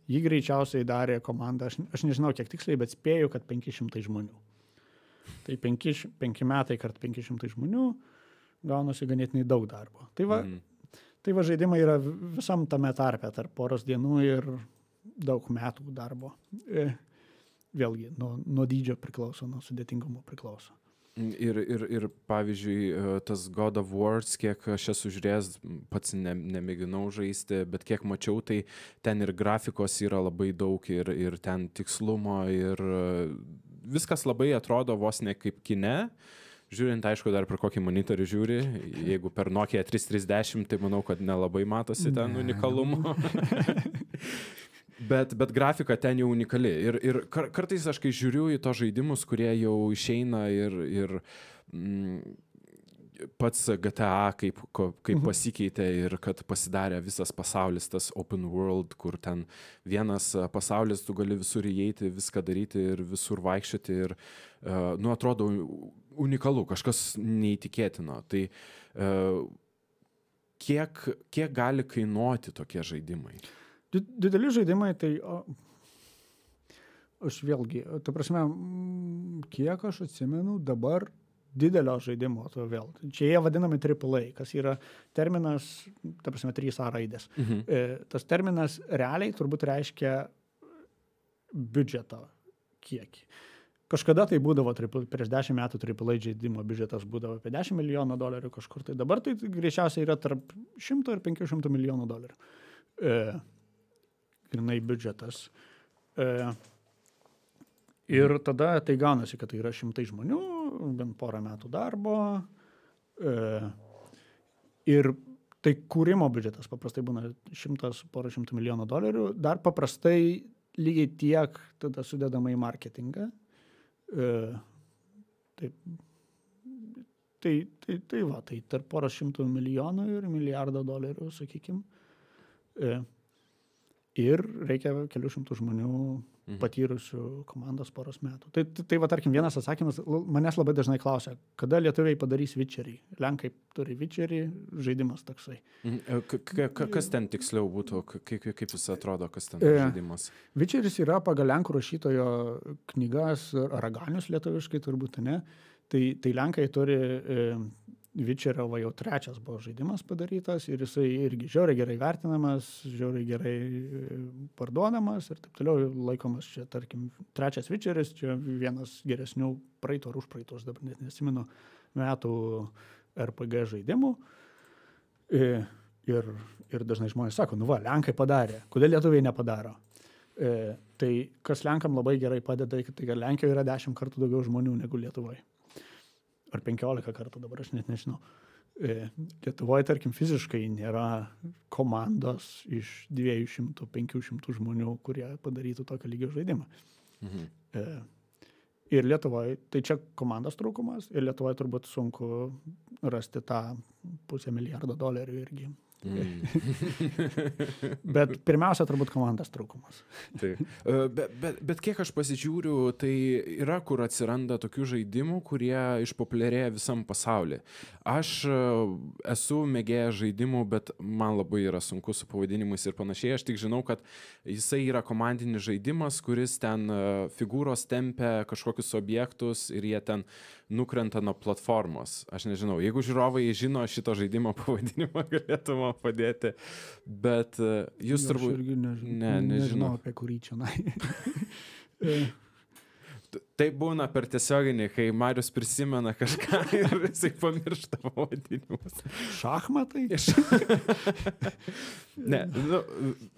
Jį greičiausiai darė komanda, aš nežinau kiek tiksliai, bet spėju, kad 500 žmonių. Tai 5 metai kart 500 žmonių gaunasi ganėtinai daug darbo. Tai va žaidimai yra visam tame tarpe, tarp poros dienų ir daug metų darbo. Vėlgi, nuo dydžio priklauso, nuo sudėtingumo priklauso. Ir pavyzdžiui, tas God of War, kiek aš esu žiūrėjęs, pats nemėginau žaisti, bet kiek mačiau, tai ten ir grafikos yra labai daug, ir ten tikslumo, ir viskas labai atrodo vos ne kaip kine. Žiūrint, aišku, dar per kokį monitorių žiūri, jeigu per Nokia 330, tai manau, kad nelabai matosi ten unikalumo. Bet grafika ten jau unikali. Ir kartais aš kai žiūriu į to žaidimus, kurie jau išeina ir pats GTA kaip pasikeitė ir kad pasidarė visas pasaulis, tas open world, kur ten vienas pasaulis, tu gali visur įeiti, viską daryti ir visur vaikščioti ir, nu, atrodo unikalu, kažkas neįtikėtino. Tai kiek gali kainuoti tokie žaidimai? Dideli žaidimai, tai aš vėlgi, ta prasme, kiek aš atsimenu dabar didelio žaidimo, to vėl. Čia jie vadinami AAA, kas yra terminas, ta prasme, 3A raidės. Tas terminas realiai turbūt reiškia biudžeto kiekį. Kažkada tai būdavo, prieš 10 metų AAA žaidimo biudžetas būdavo apie $10 milijonų kažkur. Tai dabar tai greičiausiai yra tarp 100 ir 500 milijonų $. Grinai biudžetas. Ir tada tai gaunasi, kad tai yra 100 žmonių, bent porą metų darbo. Ir tai kūrimo biudžetas paprastai būna porą šimtų milijonų $. Dar paprastai lygiai tiek tada sudedama į marketingą. Tai va, tai tarp porą šimtų milijonų ir milijardą $, sakykim. Ir reikia kelių šimtų žmonių patyrusių komandos poros metų. Tai va, tarkim, vienas atsakymas, manęs labai dažnai klausia, kada lietuviai padarys Witcherį. Lenkai turi Witcherį, žaidimas toksai. Kas ten tiksliau būtų, kaip jis atrodo, kas ten žaidimas? Witcheris yra pagal lenkų rašytojo knygas, Raganius lietuviškai turbūt, ne? Tai Lenkai turi Witcherio va jau 3 buvo žaidimas padarytas ir jisai irgi žiauriai gerai vertinamas, žiauriai gerai parduodamas ir taip toliau laikomas čia, tarkim, 3 Witcheris, čia vienas geresnių praeito ar užpraeitos, dabar net nesimenu, metų RPG žaidimų. Ir dažnai žmonės sako, nu va, Lenkai padarė, kodėl lietuviai nepadaro? Tai kas Lenkam labai gerai padeda, tai kad Lenkijoje yra 10 kartų daugiau žmonių negu Lietuvoje. Ar 15 kartų, dabar aš net nežinau. Lietuvoje, tarkim, fiziškai nėra komandos iš 200-500 žmonių, kurie padarytų tokio lygio žaidimą. Ir Lietuvoje, tai čia komandos trūkumas, ir Lietuvoje turbūt sunku rasti tą $500 milijardo irgi Bet pirmiausia, turbūt komandos trūkumas. Tai, bet kiek aš pasižiūriu, tai yra, kur atsiranda tokių žaidimų, kurie išpopuliarėja visam pasaulyje. Aš esu mėgėjęs žaidimų, bet man labai yra sunku su pavadinimais ir panašiai. Aš tik žinau, kad jisai yra komandinis žaidimas, kuris ten figūros tempia kažkokius objektus ir jie ten nukrenta nuo platformos. Aš nežinau, jeigu žiūrovai žino šito žaidimo pavadinimą, galėtų man padėti, bet jūs turbūt... Aš irgi nežinau apie kurį čia. Tai būna per tiesioginį, kai Marius prisimena kažką ir jisai pamiršta pavadinimus. Šachmatai? Ne, nu,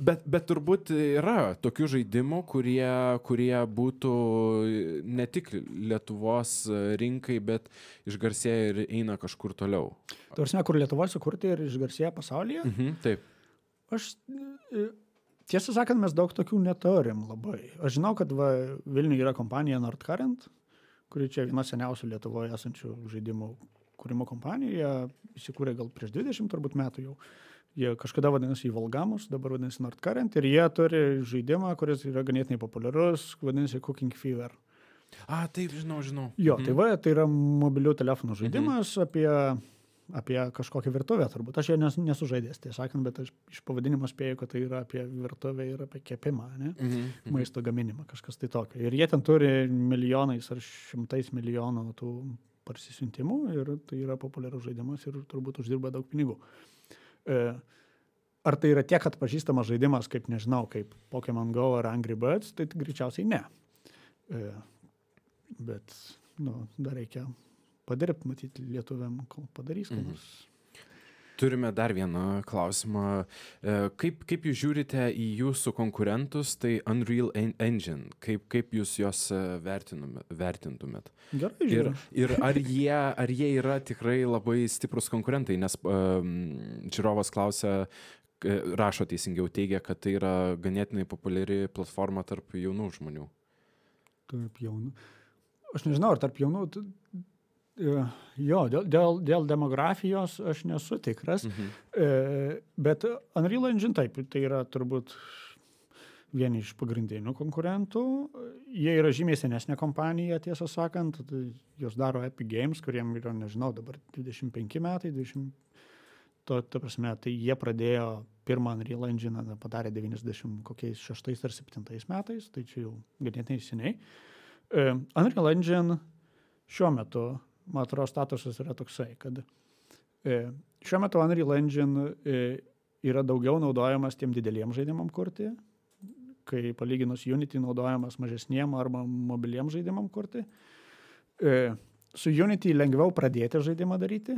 bet turbūt yra tokių žaidimų, kurie būtų ne tik Lietuvos rinkai, bet išgarsėja ir eina kažkur toliau. Tarsime, kur Lietuvoje sukurti ir išgarsėja pasaulyje? Taip. Aš... Tiesą sakant, mes daug tokių neturim labai. Aš žinau, kad Vilniuje yra kompanija Nordcurrent, kuri čia viena seniausių Lietuvoje esančių žaidimų kūrimo kompanijų. Jie įsikūrė gal prieš 20 turbūt metų jau. Jie kažkada vadinasi Volgamus, dabar vadinasi Nordcurrent ir jie turi žaidimą, kuris yra ganėtinai populiarus, vadinasi Cooking Fever. Taip, žinau. Jo, tai yra mobilių telefonų žaidimas apie kažkokią virtuvę turbūt. Aš jo nesu žaidęs, tai sakant, bet aš iš pavadinimo spėju, kad tai yra apie virtuvę ir apie kepimą, ne? Maisto gaminimą, kažkas tai tokio. Ir jie ten turi milijonais ar šimtais milijonų tų parsisiuntimų ir tai yra populiarus žaidimas ir turbūt uždirba daug pinigų. Ar tai yra tiek atpažįstamas žaidimas, kaip nežinau, kaip Pokemon Go ar Angry Birds, tai greičiausiai ne. Bet, dar reikia padirbti, matyti lietuviam, kol padarys, ką nors. Turime dar vieną klausimą. Kaip jūs žiūrite į jūsų konkurentus, tai Unreal Engine? Kaip jūs juos vertintumėt? Gerai žiūriu. Ir ar jie yra tikrai labai stiprus konkurentai? Nes žiūrovas klausia, rašo teisingiau, teigia, kad tai yra ganėtinai populiari platforma tarp jaunų žmonių. Tarp jaunų? Aš nežinau, ar tarp jaunų... Jo, dėl demografijos aš nesu tikras, bet Unreal Engine taip, tai yra turbūt vieni iš pagrindinių konkurentų. Jie yra žymiai senesnė kompanija, tiesą sakant, jos daro Epic Games, kuriem yra, nežinau, dabar 25 metai, ta prasme, tai jie pradėjo pirmą Unreal Engine, padarė 96 ar 7 metais, tai čia jau ganėtinai seniai. Unreal Engine šiuo metu, man atrodo, statusas yra toksai, kad šiuo metu Unreal Engine yra daugiau naudojamas tiem dideliem žaidimam kurti, kai palyginus Unity naudojamas mažesniem arba mobiliem žaidimam kurti. Su Unity lengviau pradėti žaidimą daryti,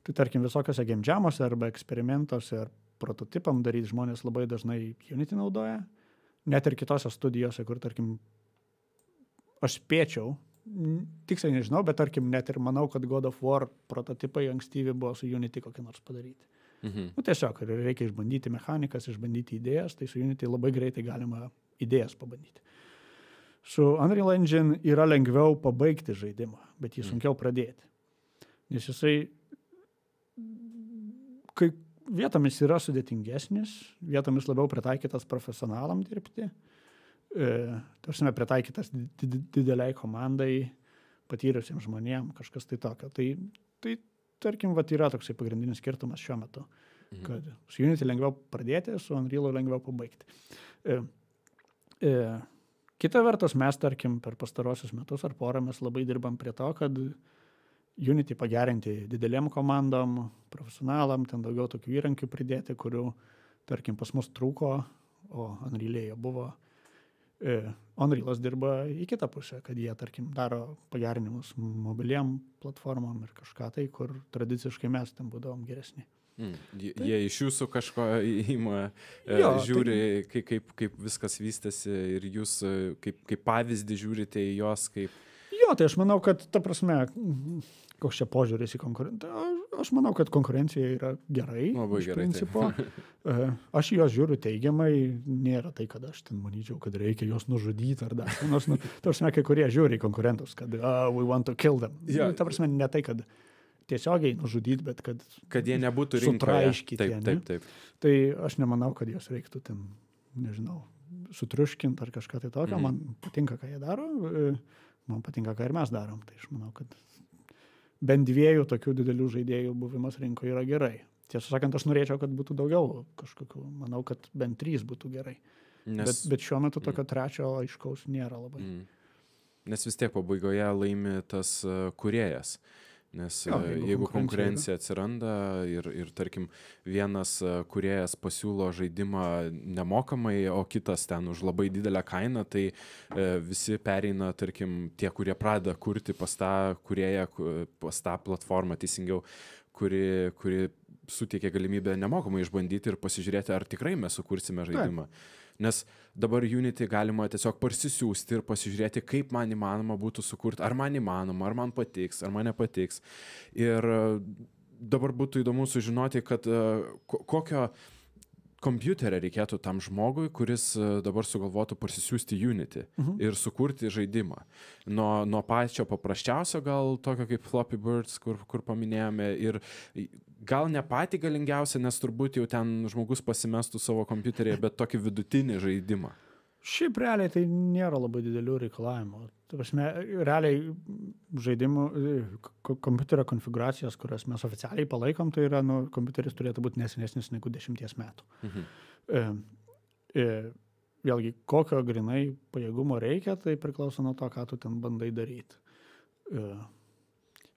tai tarkim visokiose game jamuose arba eksperimentuose ar prototipam daryti žmonės labai dažnai Unity naudoja, net ir kitose studijose, kur tarkim aš spėčiau, tiksliai nežinau, bet tarkim net ir manau, kad God of War prototipai ankstyvi buvo su Unity kokį nors padaryti. Tiesiog reikia išbandyti mechanikas, išbandyti idėjas, tai su Unity labai greitai galima idėjas pabandyti. Su Unreal Engine yra lengviau pabaigti žaidimą, bet jį sunkiau pradėti. Nes jisai kai vietomis yra sudėtingesnis, vietomis labiau pritaikytas profesionalam dirbti, tarsime pritaikytas dideliai komandai, patyrusiems žmonėm, kažkas tai tokio. Tai tarkim, yra toksai pagrindinis skirtumas šiuo metu, kad su Unity lengviau pradėti, su Unreal lengviau pabaigti. Kita vertus, mes, tarkim, per pastarosius metus ar porą mes labai dirbam prie to, kad Unity pagerinti didelėm komandom, profesionalam, ten daugiau tokių įrankių pridėti, kurių, tarkim, pas mus trūko, o Unreal'e buvo. Unreal'as dirba į kitą pusę, kad jie, tarkim, daro pagerinimus mobiliam platformom ir kažką tai, kur tradiciškai mes ten būdavom geresni. Jie iš jūsų kažko įima, žiūri, kaip viskas vystėsi ir jūs kaip pavyzdį žiūrite į jos kaip... Jo, tai aš manau, kad ta prasme, koks čia požiūris į konkurenciją. Aš manau, kad konkurencija yra gerai. Labai iš gerai, principo. Aš jos žiūriu teigiamai, nėra tai, kad aš ten manyčiau, kad reikia jos nužudyti ar dar. Ta prasme, kai kurie žiūri į konkurentus, kad we want to kill them. Ja. Ta prasme, ne tai, kad tiesiogiai nužudyti, bet kad jie nebūtų rinkoje. Sutraiškyti. Taip. Tai aš nemanau, kad jos reiktų ten, nežinau, sutriuškinti ar kažką tai tokio. Man patinka, ką jie daro, man patinka, ką ir mes darom. Tai aš manau, kad bent 2 tokių didelių žaidėjų buvimas rinkoje yra gerai. Tiesą sakant, aš norėčiau, kad būtų daugiau kažkokių. Manau, kad bent 3 būtų gerai. Bet šiuo metu tokio trečio aiškaus nėra labai. Nes vis tiek pabaigoje laimi tas kūrėjas. Nes jeigu konkurencija atsiranda ir tarkim, vienas kūrėjas pasiūlo žaidimą nemokamai, o kitas ten už labai didelę kainą, tai visi pereina, tarkim, tie, kurie pradeda kurti pas tą kūrėją, pas tą platformą, teisingiau, kuri suteikia galimybę nemokamai išbandyti ir pasižiūrėti, ar tikrai mes sukursime žaidimą. Nes dabar Unity galima tiesiog parsisiųsti ir pasižiūrėti, kaip man įmanoma būtų sukurti, ar man įmanoma, ar man patiks, ar man nepatiks. Ir dabar būtų įdomu sužinoti, kad kokio kompiuterio reikėtų tam žmogui, kuris dabar sugalvotų parsisiųsti Unity ir sukurti žaidimą. Nuo pačio paprasčiausio gal tokio kaip Flappy Birds, kur paminėjome, ir gal ne patį galingiausią, nes turbūt jau ten žmogus pasimestų savo kompiuterėje, bet tokį vidutinį žaidimą. Šiaip realiai tai nėra labai didelių reikalavimų. Ta prasme, realiai žaidimų, kompiuterio konfiguracijos, kurias mes oficialiai palaikom, tai yra, kompiuteris turėtų būti nesenesnis negu 10 metų. Vėlgi, kokio grinai pajėgumo reikia, tai priklauso nuo to, ką tu ten bandai daryti.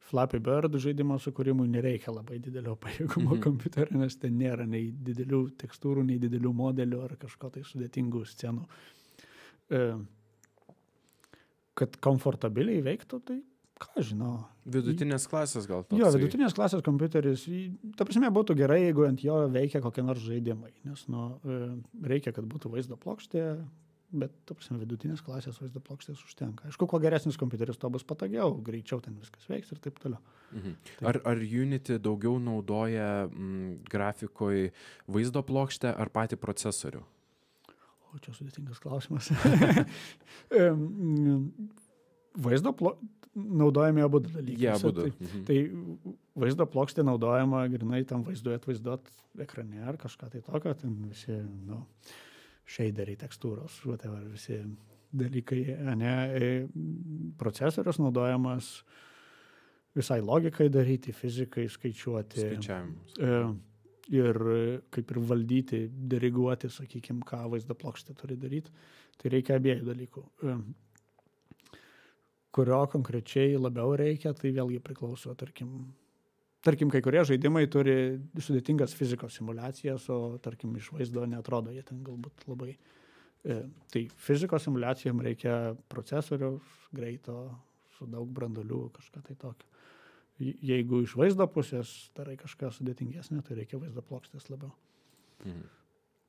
Flappy Bird žaidimo sukūrimui nereikia labai didelio pajėgumo kompiuterio, nes ten nėra nei didelių tekstūrų, nei didelių modelių ar kažko tai sudėtingų scenų. Kad komfortabiliai veiktų, tai ką žinau. Vidutinės klasės gal toks. Jo, vidutinės klasės kompiuteris, ta prasme, būtų gerai, jeigu ant jo veikia kokie nors žaidimai, nes reikia, kad būtų vaizdo plokštė, bet, ta prasme, vidutinės klasės vaizdo plokštės užtenka. Aišku, kuo geresnis kompiuteris, to bus patogiau, greičiau ten viskas veiks ir taip toliau. Ar Unity daugiau naudoja grafikoje vaizdo plokštę ar patį procesorių? O čia sudėtingas klausimas. Vaizdo naudojami abu dalykai. Abudu. Tai vaizdo plokštė naudojama grinai tam vaizduot ekrane ar kažką tai tokio, ten visi, shaderiai, tekstūros, whatever, visi dalykai, procesorius naudojamas visai logikai daryti, fizikai skaičiuoti. Skaičiavimus. Ir kaip ir valdyti, diriguoti, sakykime, ką vaizdo plokštė turi daryti. Tai reikia abiejų dalykų. Kurio konkrečiai labiau reikia, tai vėlgi priklauso, tarkim, kai kurie žaidimai turi sudėtingas fizikos simulacijas, o tarkim iš vaizdo neatrodo, jie ten galbūt labai. Tai fizikos simulacijom reikia procesoriaus, greito, su daug branduolių, kažką tai tokio. Jeigu iš vaizdo pusės darai kažką sudėtingesnė, tai reikia vaizdo plokštės labiau.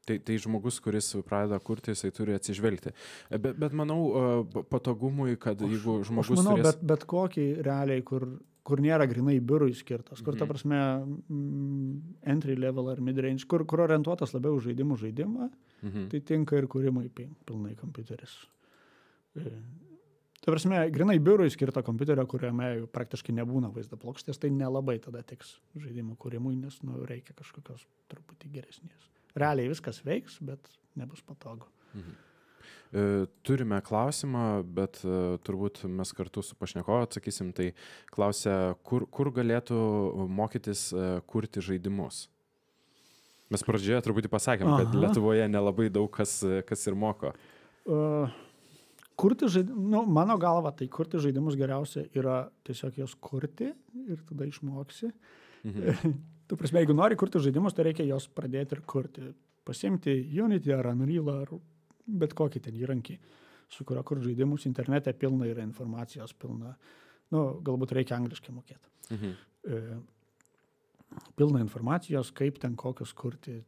Tai žmogus, kuris pradeda kurti, jisai turi atsižvelgti. Bet manau, patogumui, kad jeigu žmogus turės... Bet kokį realiai, kur nėra grinai biurui skirtas, kur ta prasme entry level ar mid-range, kur orientuotas labiau žaidimą, tai tinka ir kūrimui pilnai kompiuteris. Ta prasme, grinai biurui skirto kompiuterio, kuriame praktiškai nebūna vaizdo plokštės, tai nelabai tada tiks žaidimų kūrimui, nes reikia kažkokios truputį geresnės. Realiai viskas veiks, bet nebus patogu. Turime klausimą, bet turbūt mes kartu su pašnekovu atsakysim, tai klausia, kur galėtų mokytis kurti žaidimus? Mes pradžioje truputį pasakėm, kad Lietuvoje nelabai daug kas ir moko. Mano galva, tai kurti žaidimus geriausia yra tiesiog jos kurti ir tada išmoksi. Tu prasme, jeigu nori kurti žaidimus, tai reikia jos pradėti ir kurti. Pasimti Unity ar Unreal ar bet kokį ten įrankį, su kurio kur žaidimus internete pilna yra informacijos pilna. Galbūt reikia angliškai mokėti. Pilna informacijos, kaip ten kokius kurti.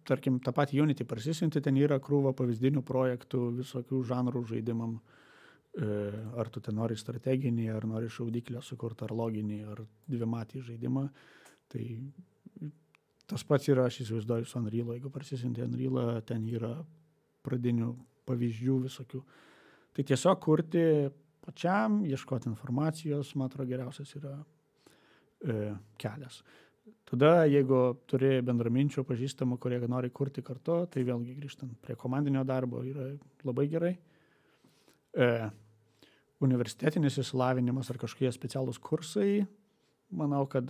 Tarkim, tą patį Unity parsisinti, ten yra krūva pavyzdinių projektų, visokių žanrų žaidimam. Ar tu ten nori strateginį, ar nori šaudyklę sukurti, ar loginį, ar dvimatį žaidimą. Tai tas pats yra, aš įsivaizduoju, su Unreal. Jeigu parsisinti Unreal, ten yra pradinių pavyzdžių visokių. Tai tiesiog kurti pačiam, ieškoti informacijos, man atrodo, geriausias yra kelias. Tada, jeigu turi bendraminčių pažįstamų, kurie nori kurti kartu, tai vėlgi grįžtant prie komandinio darbo yra labai gerai. Universitetinis išsilavinimas ar kažkokie specialūs kursai, manau, kad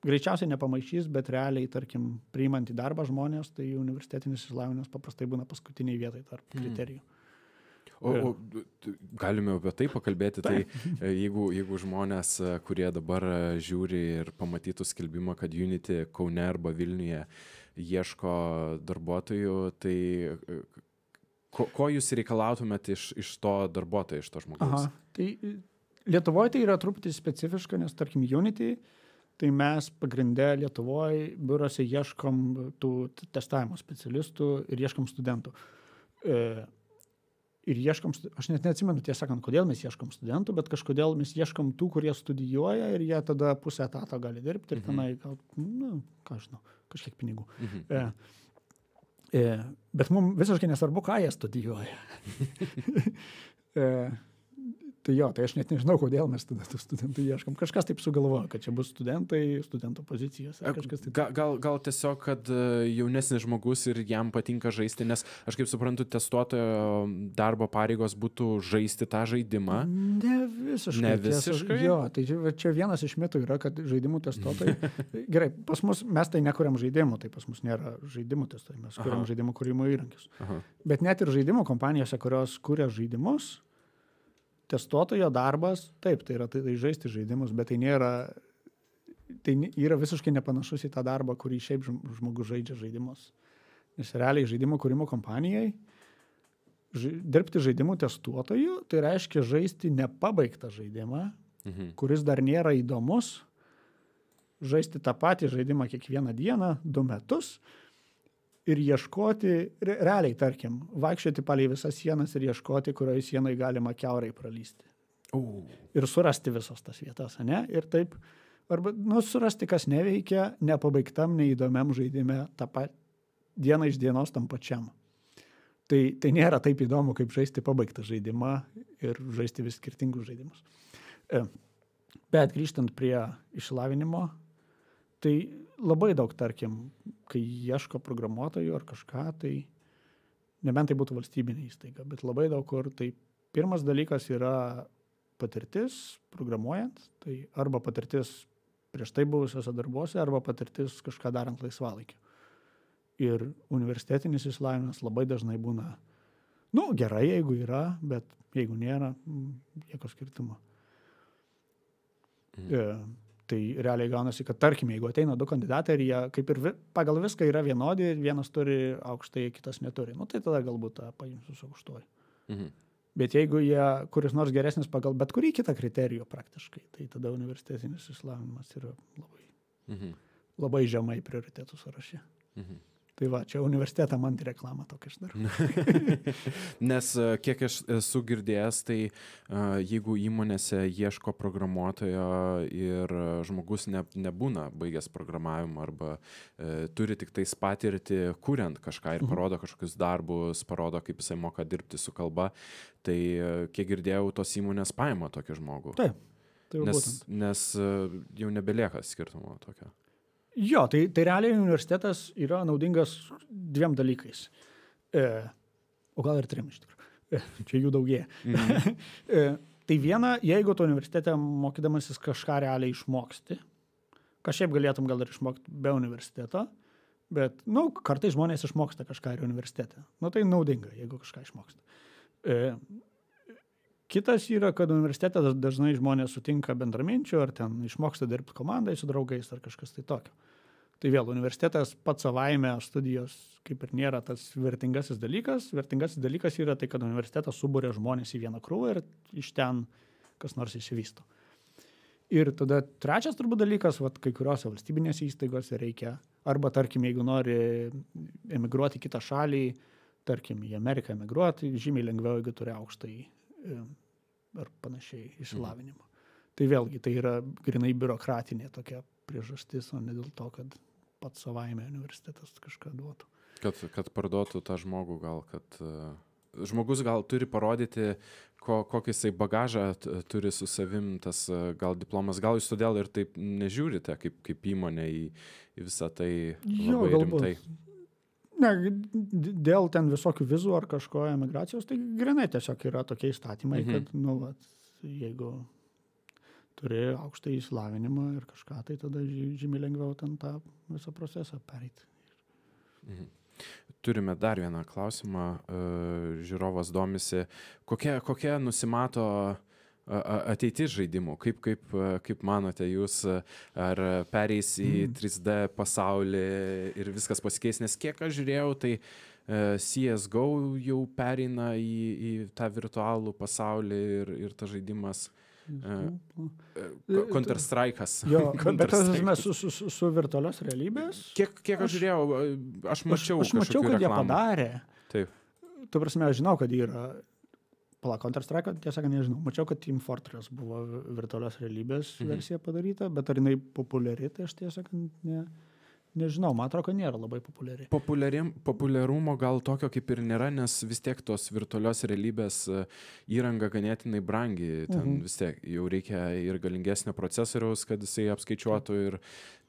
greičiausiai nepamaišys, bet realiai, tarkim, priimant į darbą žmonės, tai universitetinis išsilavinimas paprastai būna paskutiniai vietai tarp kriterijų. O galime apie tai pakalbėti, tai jeigu žmonės, kurie dabar žiūri ir pamatytų skelbimą, kad Unity Kaune arba Vilniuje ieško darbuotojų, tai ko jūs reikalautumėt iš to darbuotojo, iš to žmogaus? Tai Lietuvoje tai yra truputį specifiška, nes tarkim Unity, tai mes pagrindę Lietuvoje biurose ieškom tų testavimo specialistų ir ieškom studentų. Ir ieškom, aš net neatsimenu tiesą sakant, kodėl mes ieškom studentų, bet kažkodėl mes ieškom tų, kurie studijuoja ir jie tada pusę etato gali dirbti ir tenai, ką žinau, kažkiek pinigų. Bet mums visiškai nesvarbu, ką jie studijuoja. Tai jo, tai aš net nežinau, kodėl mes tada tų studentų ieškom. Kažkas taip sugalvoja, kad čia bus studentai, studentų pozicijos. Gal tiesiog, kad jaunesnis žmogus ir jam patinka žaisti, nes aš kaip suprantu, testuotojo darbo pareigos būtų žaisti tą žaidimą. Ne visiškai. Jo, tai čia vienas iš mitų yra, kad žaidimų testuotojai. Gerai, pas mus mes tai nekuriam žaidimų, tai pas mus nėra žaidimų testuotojai, mes kuriam žaidimų kūrimo įrankius. Bet net ir žaidimų kompanijose, kurios kuria žaidimus, testuotojo darbas, taip, tai yra tai žaisti žaidimus, bet tai yra visiškai nepanašus į tą darbą, kurį šiaip žmogus žaidžia žaidimus. Nes realiai žaidimų kūrimo kompanijai dirbti žaidimų testuotojų, tai reiškia žaisti nepabaigtą žaidimą, kuris dar nėra įdomus, žaisti tą patį žaidimą kiekvieną dieną, 2 metus, ir ieškoti, realiai, tarkim, vaikščioti palei visas sienas ir ieškoti, kurioje sienai galima kiaurai pralysti. Ir surasti visas tas vietas, ne? Ir taip, arba, surasti, kas neveikia, nepabaigtam, neįdomiam žaidime, tą dieną iš dienos tam pačiam. Tai nėra taip įdomu, kaip žaisti pabaigtą žaidimą ir žaisti vis skirtingus žaidimus. Bet grįžtant prie išsilavinimo, tai labai daug, tarkim, kai ieško programuotojų ar kažką, tai nebent tai būtų valstybinė įstaiga, bet labai daug kur, tai pirmas dalykas yra patirtis programuojant, tai arba patirtis prieš tai buvusiose darbuose, arba patirtis kažką darant laisvalaikiu. Ir universitetinis išsilavinimas labai dažnai būna, gerai, jeigu yra, bet jeigu nėra, jokio skirtumo. Tai realiai gaunasi, kad tarkim, jeigu ateina 2 kandidatai ir jie kaip ir pagal viską yra vienodi, vienas turi aukštai, kitas neturi, tai tada galbūt tą paimsiu su aukštuoju. Bet jeigu jie kuris nors geresnis pagal bet kurį kitą kriterijų praktiškai, tai tada universitetinis išsilavinimas yra labai žemai prioritetų sąraše. Tai va, čia universitetą man reklamą tokia aš darau. Nes kiek aš esu girdėjęs, tai jeigu įmonėse ieško programuotojo ir žmogus nebūna baigęs programavimą arba turi tik tais patirtį kuriant kažką ir parodo kažkokius darbus, parodo, kaip jisai moka dirbti su kalba, tai kiek girdėjau, tos įmonės paima tokį žmogų. Taip, tai jau būtent. Nes jau nebelieka skirtumo tokio. Jo, tai realiai universitetas yra naudingas 2 dalykais. O gal ir 3 iš tikrųjų. Čia jų daugėja. Tai viena, jeigu tu universitete mokydamasis kažką realiai išmoksti, kažkaip galėtum gal ir išmokti be universiteto, bet, kartais žmonės išmoksta kažką ir universitete. Tai naudinga, jeigu kažką išmoksta. Kitas yra, kad universitete dažnai žmonės sutinka bendraminčių, ar ten išmoksta dirbti komandai su draugais, ar kažkas tai tokio. Tai vėl, universitetas pats savaime studijos kaip ir nėra tas vertingasis dalykas. Vertingasis dalykas yra tai, kad universitetas suburia žmonės į vieną krūvą ir iš ten kas nors išsivysto. Ir tada trečias turbūt dalykas, kai kuriuose valstybinėse įstaigose reikia, arba tarkim, jeigu nori emigruoti į kitą šalį, tarkim, į Ameriką emigruoti, žymiai lengviau, jeigu turi aukštąjį ar panašiai išsilavinimą. Tai vėlgi, tai yra grinai biurokratinė tokia priežastis, o ne dėl to, kad pats savaime universitetas kažką duotų. Kad parduotų tą žmogų gal, kad žmogus gal turi parodyti, kokį jisai bagažą turi su savim, tas gal diplomas, gal jūs todėl ir taip nežiūrite kaip įmonė į visą tai labai rimtai. Ne, dėl ten visokių vizų ar kažko emigracijos, tai grinai tiesiog yra tokie įstatymai, kad, jeigu turi aukštą įsilavinimą ir kažką, tai tada žymiai lengviau ten tą visą procesą pereiti. Turime dar vieną klausimą. Žiūrovas domisi, kokia nusimato ateitis žaidimų? Kaip manote jūs, ar pereis į 3D pasaulį ir viskas pasikeis? Nes kiek aš žiūrėjau, tai CSGO jau pereina į tą virtualų pasaulį ir tas žaidimas Counter-Strike'as. Jo, bet tas su virtualios realybės. Kiek aš žiūrėjau, aš mačiau kad jie padarė. Taip. Tu prasme, aš žinau, kad yra Counter-Strike, tiesą nežinau. Mačiau, kad Team Fortress buvo virtualios realybės versija padaryta, bet ar jinai populiari, tai aš tiesą nežinau, man atrodo, kad nėra labai populiari. Populiarumo gal tokio kaip ir nėra, nes vis tiek tos virtualios realybės įranga ganėtinai brangi. Ten vis tiek jau reikia ir galingesnio procesoriaus, kad jisai apskaičiuotų ir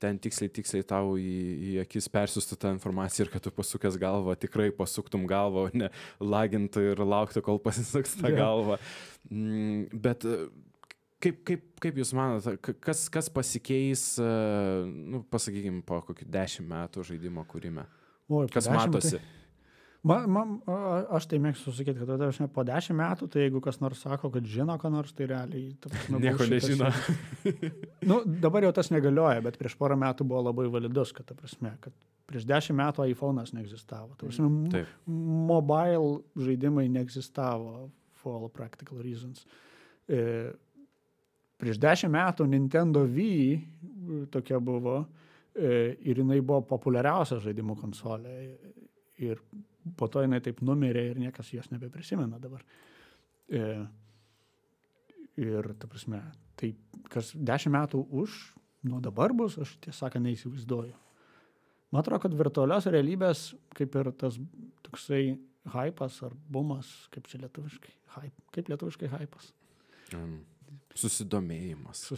ten tiksliai tau į akis persiųstų tą informaciją ir kad tu pasukęs galvą, tikrai pasuktum galvą, o ne lagintų ir lauktų, kol pasisuks tą galvą. Bet kaip jūs manote, kas pasikeis, pasakykime, po kokių 10 metų žaidimo kūrime? Kas matosi? Aš tai mėgstu sakyti, kad po 10 metų, tai jeigu kas nors sako, kad žino, ką nors, tai realiai... Nieko nežino. Dabar jau tas negalioja, bet prieš porą metų buvo labai validus, kad prieš 10 metų iPhone'as neegzistavo. Mobile žaidimai neegzistavo for all practical reasons. Prieš 10 metų Nintendo Wii tokia buvo ir jinai buvo populiariausia žaidimų konsolė ir po to jinai taip numirė ir niekas jos nebeprisimena dabar. Ir ta prasme, tai kas 10 metų nuo dabar bus, aš tiesą neįsivaizduoju. Man atrodo, kad virtualios realybės kaip ir tas toksai hypas ar bumas, kaip čia lietuviškai, kaip lietuviškai hypas. Susidomėjimas.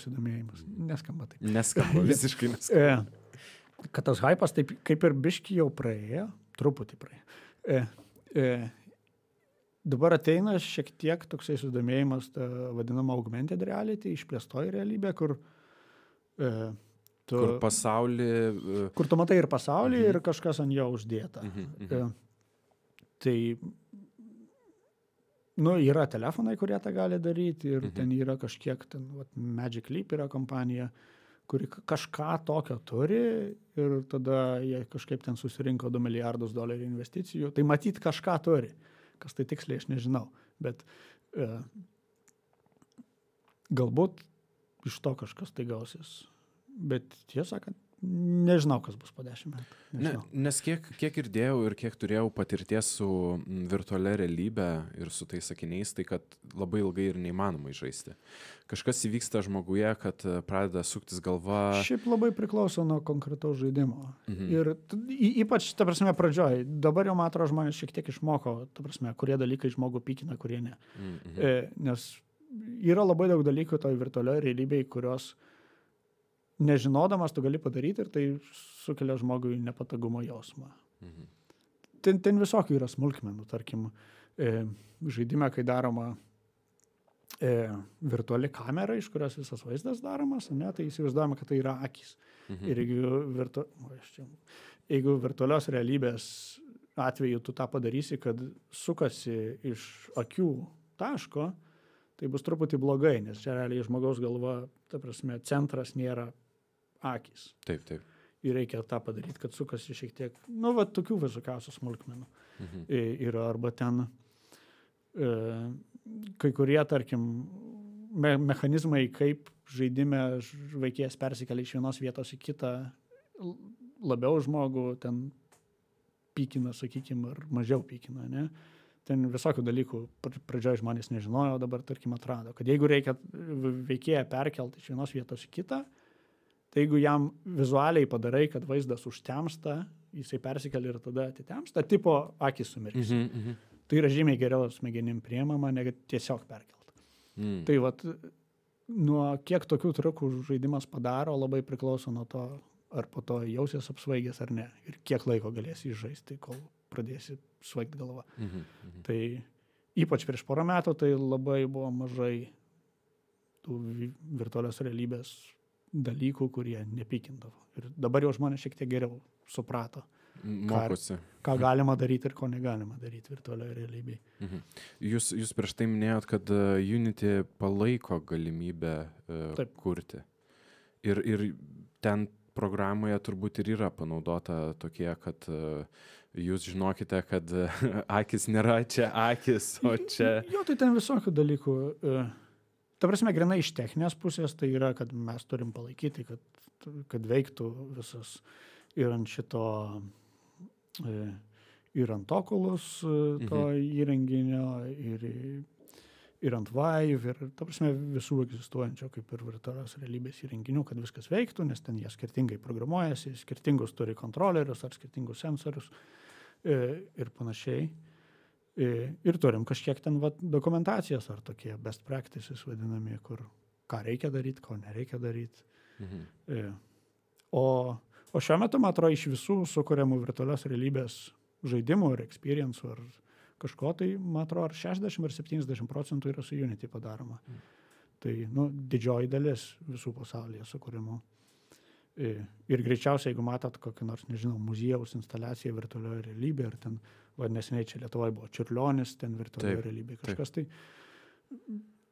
Neskamba taip. Neskamba, visiškai neskamba. Kad tas hypas taip kaip ir biški jau praėjo, truputį praėjo. Dabar ateina šiek tiek toksai susidomėjimas, ta vadinama augmented reality, išplėstoji realybė, kur pasaulį... Kur tu matai ir pasaulį ir kažkas ant jo uždėta. Tai yra telefonai, kurie tą gali daryti ir ten yra kažkiek, Magic Leap yra kompanija, kuri kažką tokio turi ir tada jie kažkaip ten susirinko $2 milijardus investicijų. Tai matyt kažką turi. Kas tai tiksliai, aš nežinau. Bet galbūt iš to kažkas tai gausis. Bet tiesą, kad nežinau, kas bus po 10 metų. Nes kiek girdėjau ir kiek turėjau patirties su virtualia realybė ir su tais sakiniais, tai kad labai ilgai ir neįmanoma žaisti. Kažkas įvyksta žmoguje, kad pradeda suktis galva. Šiaip labai priklauso nuo konkretaus žaidimo. Ir ypač, ta prasme, pradžioj. Dabar jau, man atrodo, žmonės šiek tiek išmoko, ta prasme, kurie dalykai žmogų pykina, kurie ne. Nes yra labai daug dalykų toj virtualioje realybėje, kurios nežinodamas tu gali padaryti ir tai sukelia žmogui nepatogumo jausmą. Ten visokių yra smulkmenų, tarkim, žaidime, kai daroma virtuali kamera, iš kurios visas vaizdas daromas, tai įsivaizduojame, kad tai yra akys. Ir jeigu virtualios realybės atveju tu tą padarysi, kad sukasi iš akių taško, tai bus truputį blogai, nes čia realiai žmogaus galva, ta prasme, centras nėra akys. Taip. Ir reikia tą padaryti, kad sukasi šiek tiek, tokių visokiausių smulkmenų. Ir arba ten kai kurie, tarkim, mechanizmai, kaip žaidime veikėjas persikelia iš vienos vietos į kitą, labiau žmogų ten pykina, sakykime, ar mažiau pykina, ne? Ten visokių dalykų pradžioje žmonės nežinojo, dabar, tarkim, atrado, kad jeigu reikia veikėją perkelti iš vienos vietos į kitą, tai jeigu jam vizualiai padarai, kad vaizdas užtemsta, jisai persikelia ir tada atitemsta, tipo akis sumirks. Tai yra žymiai geriau smegenim priemama, negu tiesiog perkelta. Tai vat, nuo kiek tokių triukų žaidimas padaro, labai priklauso nuo to, ar po to jausies apsvaigęs ar ne. Ir kiek laiko galėsi žaisti, kol pradėsi svaigti galvą. Tai ypač prieš porą metų tai labai buvo mažai tų virtualios realybės dalykų, kurie nepykindavo. Ir dabar jau žmonės šiek tiek geriau suprato, ką galima daryti ir ko negalima daryti virtualioje realybėje. Jūs prieš tai minėjot, kad Unity palaiko galimybę kurti. Ir ten programoje turbūt ir yra panaudota tokie, kad jūs žinokite, kad akis nėra čia akis, o čia... Jo, tai ten visokių dalykų. Ta prasme, grinai iš techninės pusės, tai yra, kad mes turim palaikyti, kad veiktų visas ir ant šito, ir ant Oculus to įrenginio, ir ant Vive, ir ta prasme visų egzistuojančio kaip ir virtualios realybės įrenginių, kad viskas veiktų, nes ten jie skirtingai programuojasi, skirtingus turi kontrolerius ar skirtingus sensorius ir panašiai. Ir turim kažkiek ten dokumentacijos ar tokie best practices vadinami, kur ką reikia daryti, ko nereikia daryti. O šiuo metu, man atrodo, iš visų sukuriamų virtualios realybės žaidimų ir experience'ų ar kažko, tai, man atrodo, ar 60 ar 70% yra su Unity padaroma. Tai, didžioji dalis visų pasaulyje sukūrimų. Ir greičiausiai, jeigu matot kokį nors, nežinau, muziejaus instaliaciją virtualioje realybėje, ar ten, neseniai čia Lietuvoje buvo Čiurlionis, ten virtualioje realybėje kažkas,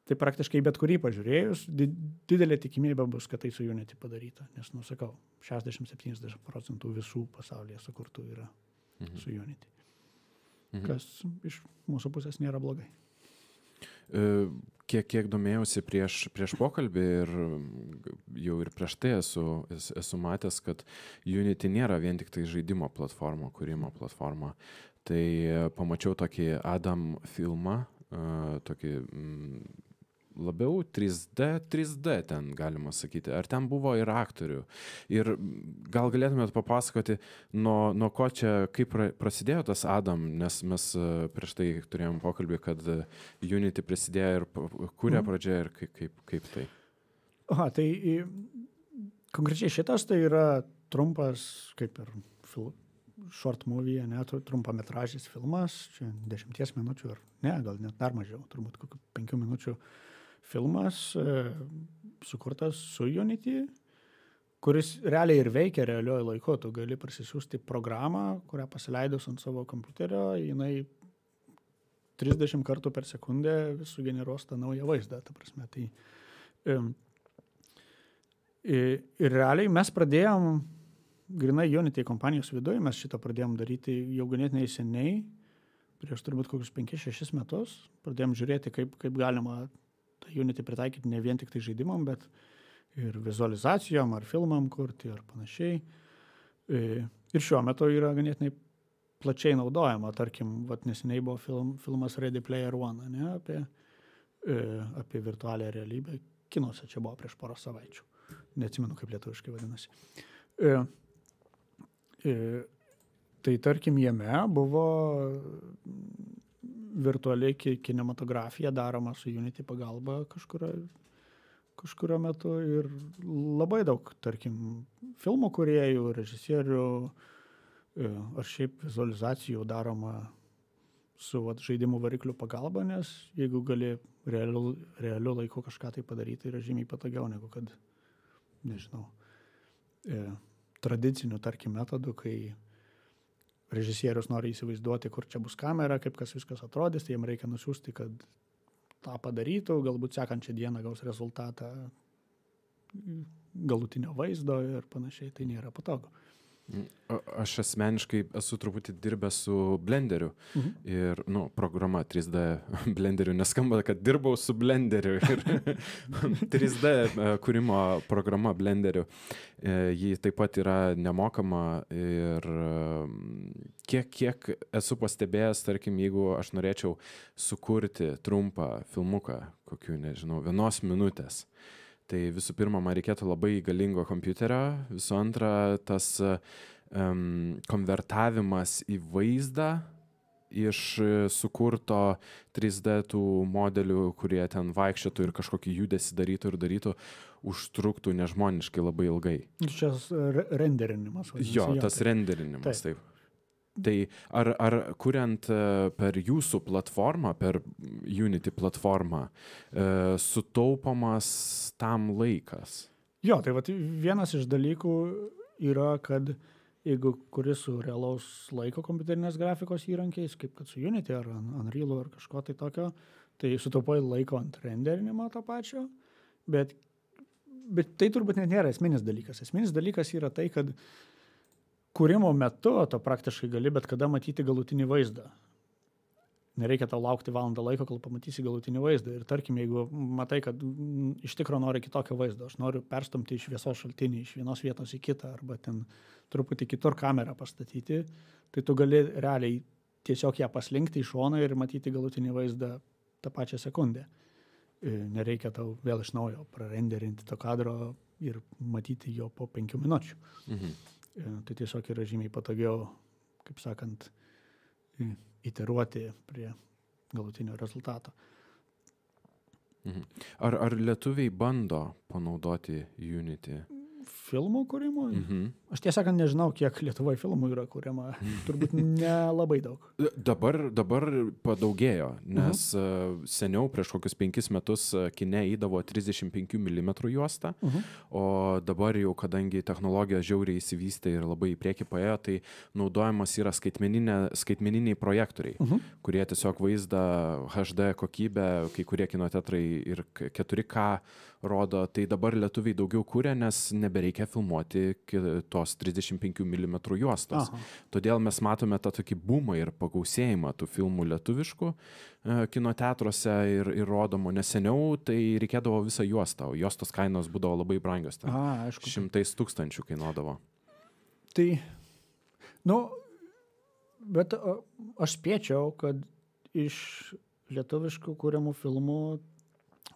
tai praktiškai bet kurį pažiūrėjus, didelė tikimybė bus, kad tai su Unity padaryta. Nes, sakau, 60-70% visų pasaulyje sukurtų yra su Unity. Kas iš mūsų pusės nėra blogai. Kiek domėjausi prieš pokalbį ir jau ir prieš tai esu matęs, kad Unity nėra vien tik tai žaidimo platforma, kūrimo platforma. Tai pamačiau tokį Adam filmą, tokį labiau 3D ten galima sakyti. Ar ten buvo ir aktorių? Ir gal galėtumėt papasakoti, nuo ko čia, kaip prasidėjo tas Adam, nes mes prieš tai turėjom pokalbį, kad Unity prisidėjo ir kūrė pradžioje ir kaip tai. Tai konkrečiai šitas tai yra trumpas, kaip ir short movie, trumpametražis filmas, čia 10 minučių ar ne, gal net dar mažiau, turbūt kokių 5 minučių filmas sukurtas su Unity, kuris realiai ir veikia realiuoju laiku. Tu gali parsisiųsti programą, kurią pasileidus ant savo kompiuterio, jinai 30 kartų per sekundę vis sugeneruos tą naują vaizdą. Ta prasme, tai, ir realiai mes pradėjom, grinai Unity kompanijos viduje, mes šitą pradėjom daryti jau ganėtinai seniai, prieš turbūt kokius 5-6 metus. Pradėjom žiūrėti, kaip galima Unity pritaikyti ne vien tik tai žaidimam, bet ir vizualizacijom, ar filmam kurti, ar panašiai. Ir šiuo metu yra ganėtinai plačiai naudojama. Tarkim, neseniai buvo filmas Ready Player One, ne, apie virtualią realybę. Kinuose čia buvo prieš porą savaičių. Neatsimenu, kaip lietuviškai vadinasi. Tai tarkim, jame buvo virtualiai kinematografija daroma su Unity pagalba kažkurio metu ir labai daug, tarkim, filmų kūrėjų, režisierių ar šiaip vizualizacijų daroma su žaidimų variklių pagalba, nes jeigu gali realiu laiku kažką tai padaryti, yra žymiai patogiau negu kad, nežinau, tradicinių, tarkim, metodų, kai režisierius nori įsivaizduoti, kur čia bus kamera, kaip kas viskas atrodys, tai jam reikia nusiųsti, kad tą padarytų, galbūt sekančią dieną gaus rezultatą galutinio vaizdo ir panašiai, tai nėra patogu. Aš asmeniškai esu truputį dirbęs su Blenderiu ir, programa 3D Blenderiu, neskamba, kad dirbau su Blenderiu ir 3D kūrimo programa Blenderiu. Ji taip pat yra nemokama ir kiek esu pastebėjęs, tarkim, jeigu aš norėčiau sukurti trumpą filmuką, kokių, nežinau, 1 minutės, tai visų pirma, man reikėtų labai galingo kompiuterio, visų antra, tas konvertavimas į vaizdą iš sukurto 3D tų modelių, kurie ten vaikščiotų ir kažkokį judesį darytų, užtruktų nežmoniškai labai ilgai. Čia renderinimas. Jo, tas renderinimas, taip. Tai ar kuriant per jūsų platformą, per Unity platformą, sutaupomas tam laikas? Jo, tai vat vienas iš dalykų yra, kad jeigu kuri su realaus laiko kompiuterinės grafikos įrankiais, kaip kad su Unity ar Unreal ar kažko tai tokio, tai sutaupai laiko ant renderinimo to pačio, bet tai turbūt net nėra esminis dalykas. Esminis dalykas yra tai, kad kūrimo metu to praktiškai gali bet kada matyti galutinį vaizdą. Nereikia tau laukti valandą laiko, kol pamatysi galutinį vaizdą. Ir tarkim, jeigu matai, kad iš tikro nori kitokio vaizdo, aš noriu perstumti iš šviesos šaltinį, iš vienos vietos į kitą, arba ten truputį kitur kamerą pastatyti, tai tu gali realiai tiesiog ją paslinkti į šoną ir matyti galutinį vaizdą tą pačią sekundę. Nereikia tau vėl iš naujo prarenderinti to kadro ir matyti jo po 5 minučių. Tai tiesiog yra žymiai patogiau, kaip sakant, iteruoti prie galutinio rezultato. Ar lietuviai bando panaudoti Unity? Filmų kūrimui? Aš tiesą sakant nežinau, kiek Lietuvoje filmų yra kūrima. Turbūt nelabai daug. Dabar padaugėjo, nes seniau prieš kokius 5 metus kine įdavo 35 mm juostą, o dabar jau, kadangi technologija žiauriai įsivystė ir labai į priekį paėjo, tai naudojamas yra skaitmeniniai projektoriai, kurie tiesiog vaizdą HD kokybę, kai kurie kinoteatrai ir 4K rodo, tai dabar lietuviai daugiau kūrė, nes nebereikia filmuoti tos 35 mm juostos. Todėl mes matome tą tokį boomą ir pagausėjimą tų filmų lietuviškų kinoteatruose ir rodomų, nes seniau tai reikėdavo visą juostą, o juostos kainos būdavo labai brangios. Aišku. 100 000 kainuodavo. Tai, bet aš spėčiau, kad iš lietuviškų kūriamų filmų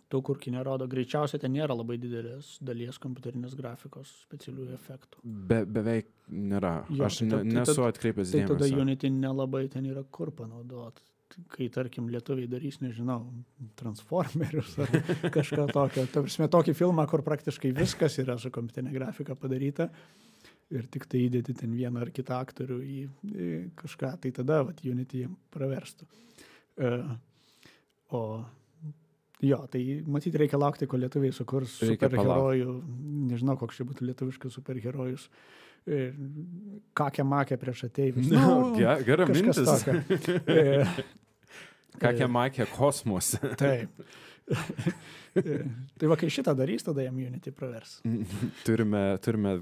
tų, kur kine rodo, greičiausiai ten nėra labai didelės dalies kompiuterinės grafikos specialiųjų efektų. Beveik nėra. Aš nesu atkreipęs dėmesio. Tai tada Unity nelabai ten yra kur panaudoti. Kai, tarkim, lietuviai darys, nežinau, Transformerius ar kažką tokio. Ta prasme, tokį filmą, kur praktiškai viskas yra su kompiuterinė grafika padaryta ir tik tai įdėti ten vieną ar kitą aktorių į kažką, tai tada Unity praverstų. Jo, tai matyti reikia laukti, kol lietuviai sukurs superherojų, nežinau, koks čia būtų lietuviškas superherojus, kakę-makę prieš ateivius. Gera mintis. Kakę-makę kosmose. Taip. Tai va, kai šitą darys, tada jam Unity pravers. Turime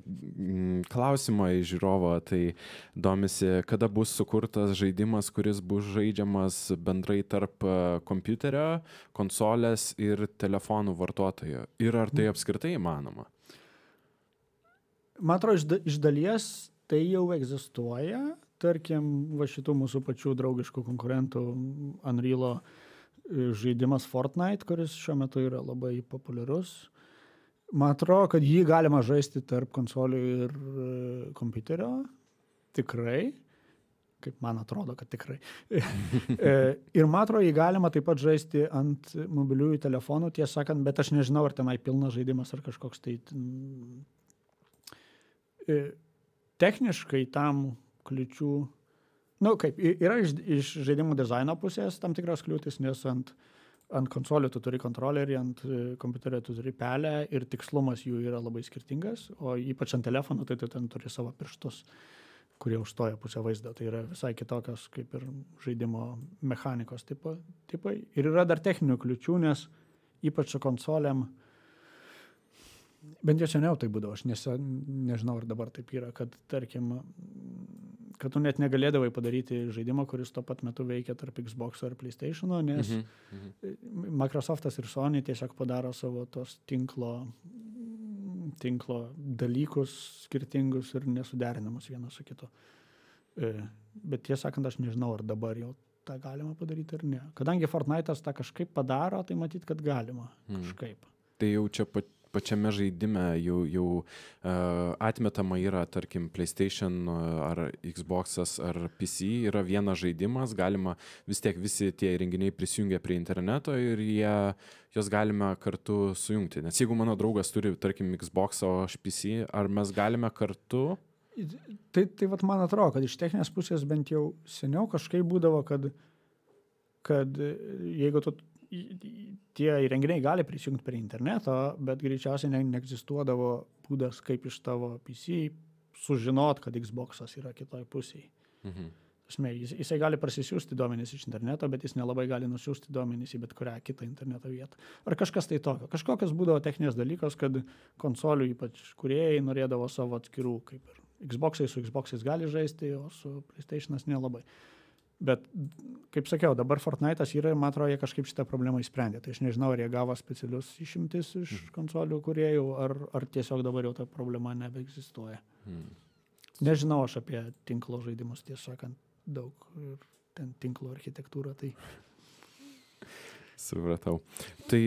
klausimą iš žiūrovo, tai domisi, kada bus sukurtas žaidimas, kuris bus žaidžiamas bendrai tarp kompiuterio, konsolės ir telefonų vartotojo. Ir ar tai apskritai įmanoma? Man atrodo, iš dalies tai jau egzistuoja. Tarkim, va šitų mūsų pačių draugiškų konkurentų Unreal'o žaidimas Fortnite, kuris šiuo metu yra labai populiarus. Man atrodo, kad jį galima žaisti tarp konsolių ir kompiuterio. Tikrai. Kaip man atrodo, kad tikrai. Ir man atrodo, jį galima taip pat žaisti ant mobiliųjų telefonų, tiesą sakant, bet aš nežinau, ar tenai pilnas žaidimas ar kažkoks tai... Techniškai tam kliūčių... kaip, yra iš žaidimų dizaino pusės tam tikras kliūtis, nes ant konsolių tu turi kontrolerį, ant kompiuterio tu turi pelę ir tikslumas jų yra labai skirtingas, o ypač ant telefono tai tu ten turi savo pirštus, kurie užstoja pusę vaizdą. Tai yra visai kitokios kaip ir žaidimo mechanikos tipai. Ir yra dar techninių kliūčių, nes ypač su konsolėm, bent jau seniau tai būdavo, aš nežinau, ar dabar taip yra, kad tarkim, kad tu net negalėdavai padaryti žaidimą, kuris tuo pat metu veikia tarp Xbox ar PlayStation'o, nes Microsoftas ir Sony tiesiog padaro savo tos tinklo dalykus skirtingus ir nesuderinamus vienas su kitu. Bet tiesą sakant, aš nežinau, ar dabar jau tą galima padaryti ar ne. Kadangi Fortnite'as tą kažkaip padaro, tai matyt, kad galima kažkaip. Tai jau čia pačiame žaidime jau atmetama yra, tarkim, PlayStation ar Xbox'as ar PC yra vienas žaidimas, galima vis tiek visi tie įrenginiai prisijungia prie interneto ir jos galime kartu sujungti. Nes jeigu mano draugas turi, tarkim, Xbox, o aš PC, ar mes galime kartu? Tai vat man atrodo, kad iš techninės pusės bent jau seniau kažkaip būdavo, kad jeigu tie įrenginiai gali prisijungti prie interneto, bet greičiausiai neegzistuodavo būdas, kaip iš tavo PC sužinot, kad Xbox'as yra kitoj pusėje. Jisai gali prasisiųsti duomenys iš interneto, bet jis nelabai gali nusiųsti duomenys į bet kurią kitą interneto vietą. Ar kažkas tai tokio. Kažkokios būdavo techninės dalykas, kad konsolių ypač kūrėjai norėdavo savo atskirų, kaip ir Xbox'ai su Xbox'ais gali žaisti, o su PlayStation'as nelabai. Bet, kaip sakiau, dabar Fortnite'as yra ir man atrodo, jie kažkaip šitą problemą įsprendė. Tai aš nežinau, ar jie gavo specialius išimtis iš konsolių kūrėjų, ar tiesiog dabar jau ta problema nebeegzistuoja. Nežinau aš apie tinklo žaidimus, tiesą sakant, daug ir ten tinklo architektūra. Tai... Supratau. Tai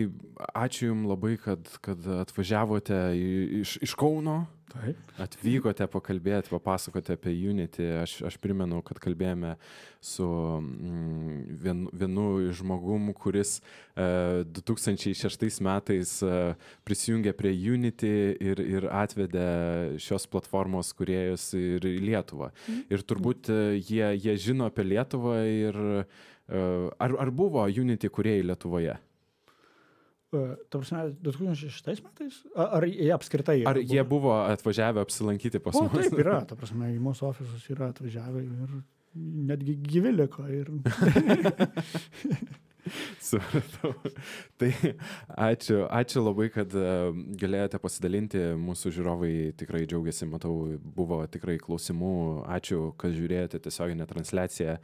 ačiū Jums labai, kad atvažiavote iš Kauno. Taip. Atvykote pakalbėti, papasakote apie Unity. Aš primenu, kad kalbėjome su vienu žmogum, kuris 2006 metais prisijungė prie Unity ir atvedė šios platformos kūrėjus ir į Lietuvą. Ir turbūt jie žino apie Lietuvą ir ar buvo Unity kūrėjai Lietuvoje? Ta prasme, 2006 metais? Ar jie apskritai? Ar jie buvo atvažiavę apsilankyti pas mus? Taip yra, ta prasme, į mūsų ofisus yra atvažiavę ir netgi gyvi liko. Supratau. Tai ačiū labai, kad galėjote pasidalinti. Mūsų žiūrovai tikrai džiaugiasi, matau, buvo tikrai klausimų. Ačiū, kad žiūrėjote tiesioginę transliaciją.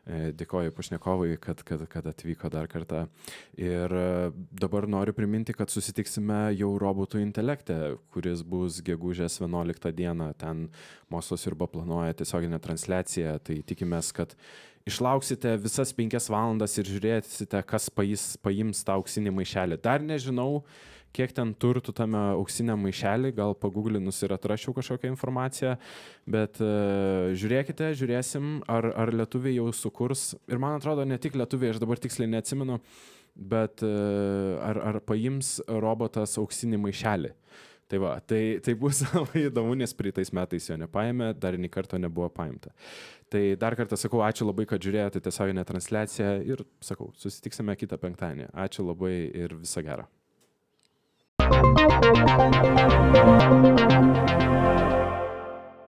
Dėkoju pašnekovui, kad atvyko dar kartą. Ir dabar noriu priminti, kad susitiksime jau robotų intelekte, kuris bus gegužės 11 dieną. Ten Mokslas Sriuba planuoja tiesioginę transliaciją. Tai tikimės, kad išlauksite visas 5 valandas ir žiūrėsite, kas paims tą auksinį maišelį. Dar nežinau, kiek ten turtų tame auksiniam maišelį, gal paguglinus ir atrašiau kažkokią informaciją, bet žiūrėsim, ar lietuviai jau sukurs. Ir man atrodo, ne tik lietuviai, aš dabar tiksliai neatsimenu, bet ar paims robotas auksinį maišelį. Tai va, tai bus labai įdomu, nes praeitais metais jo nepaėmė, dar nei karto nebuvo paimta. Tai dar kartą sakau, ačiū labai, kad žiūrėjote tiesioginę transliaciją ir sakau, susitiksime kitą penktadienį. Ačiū labai ir viso gero.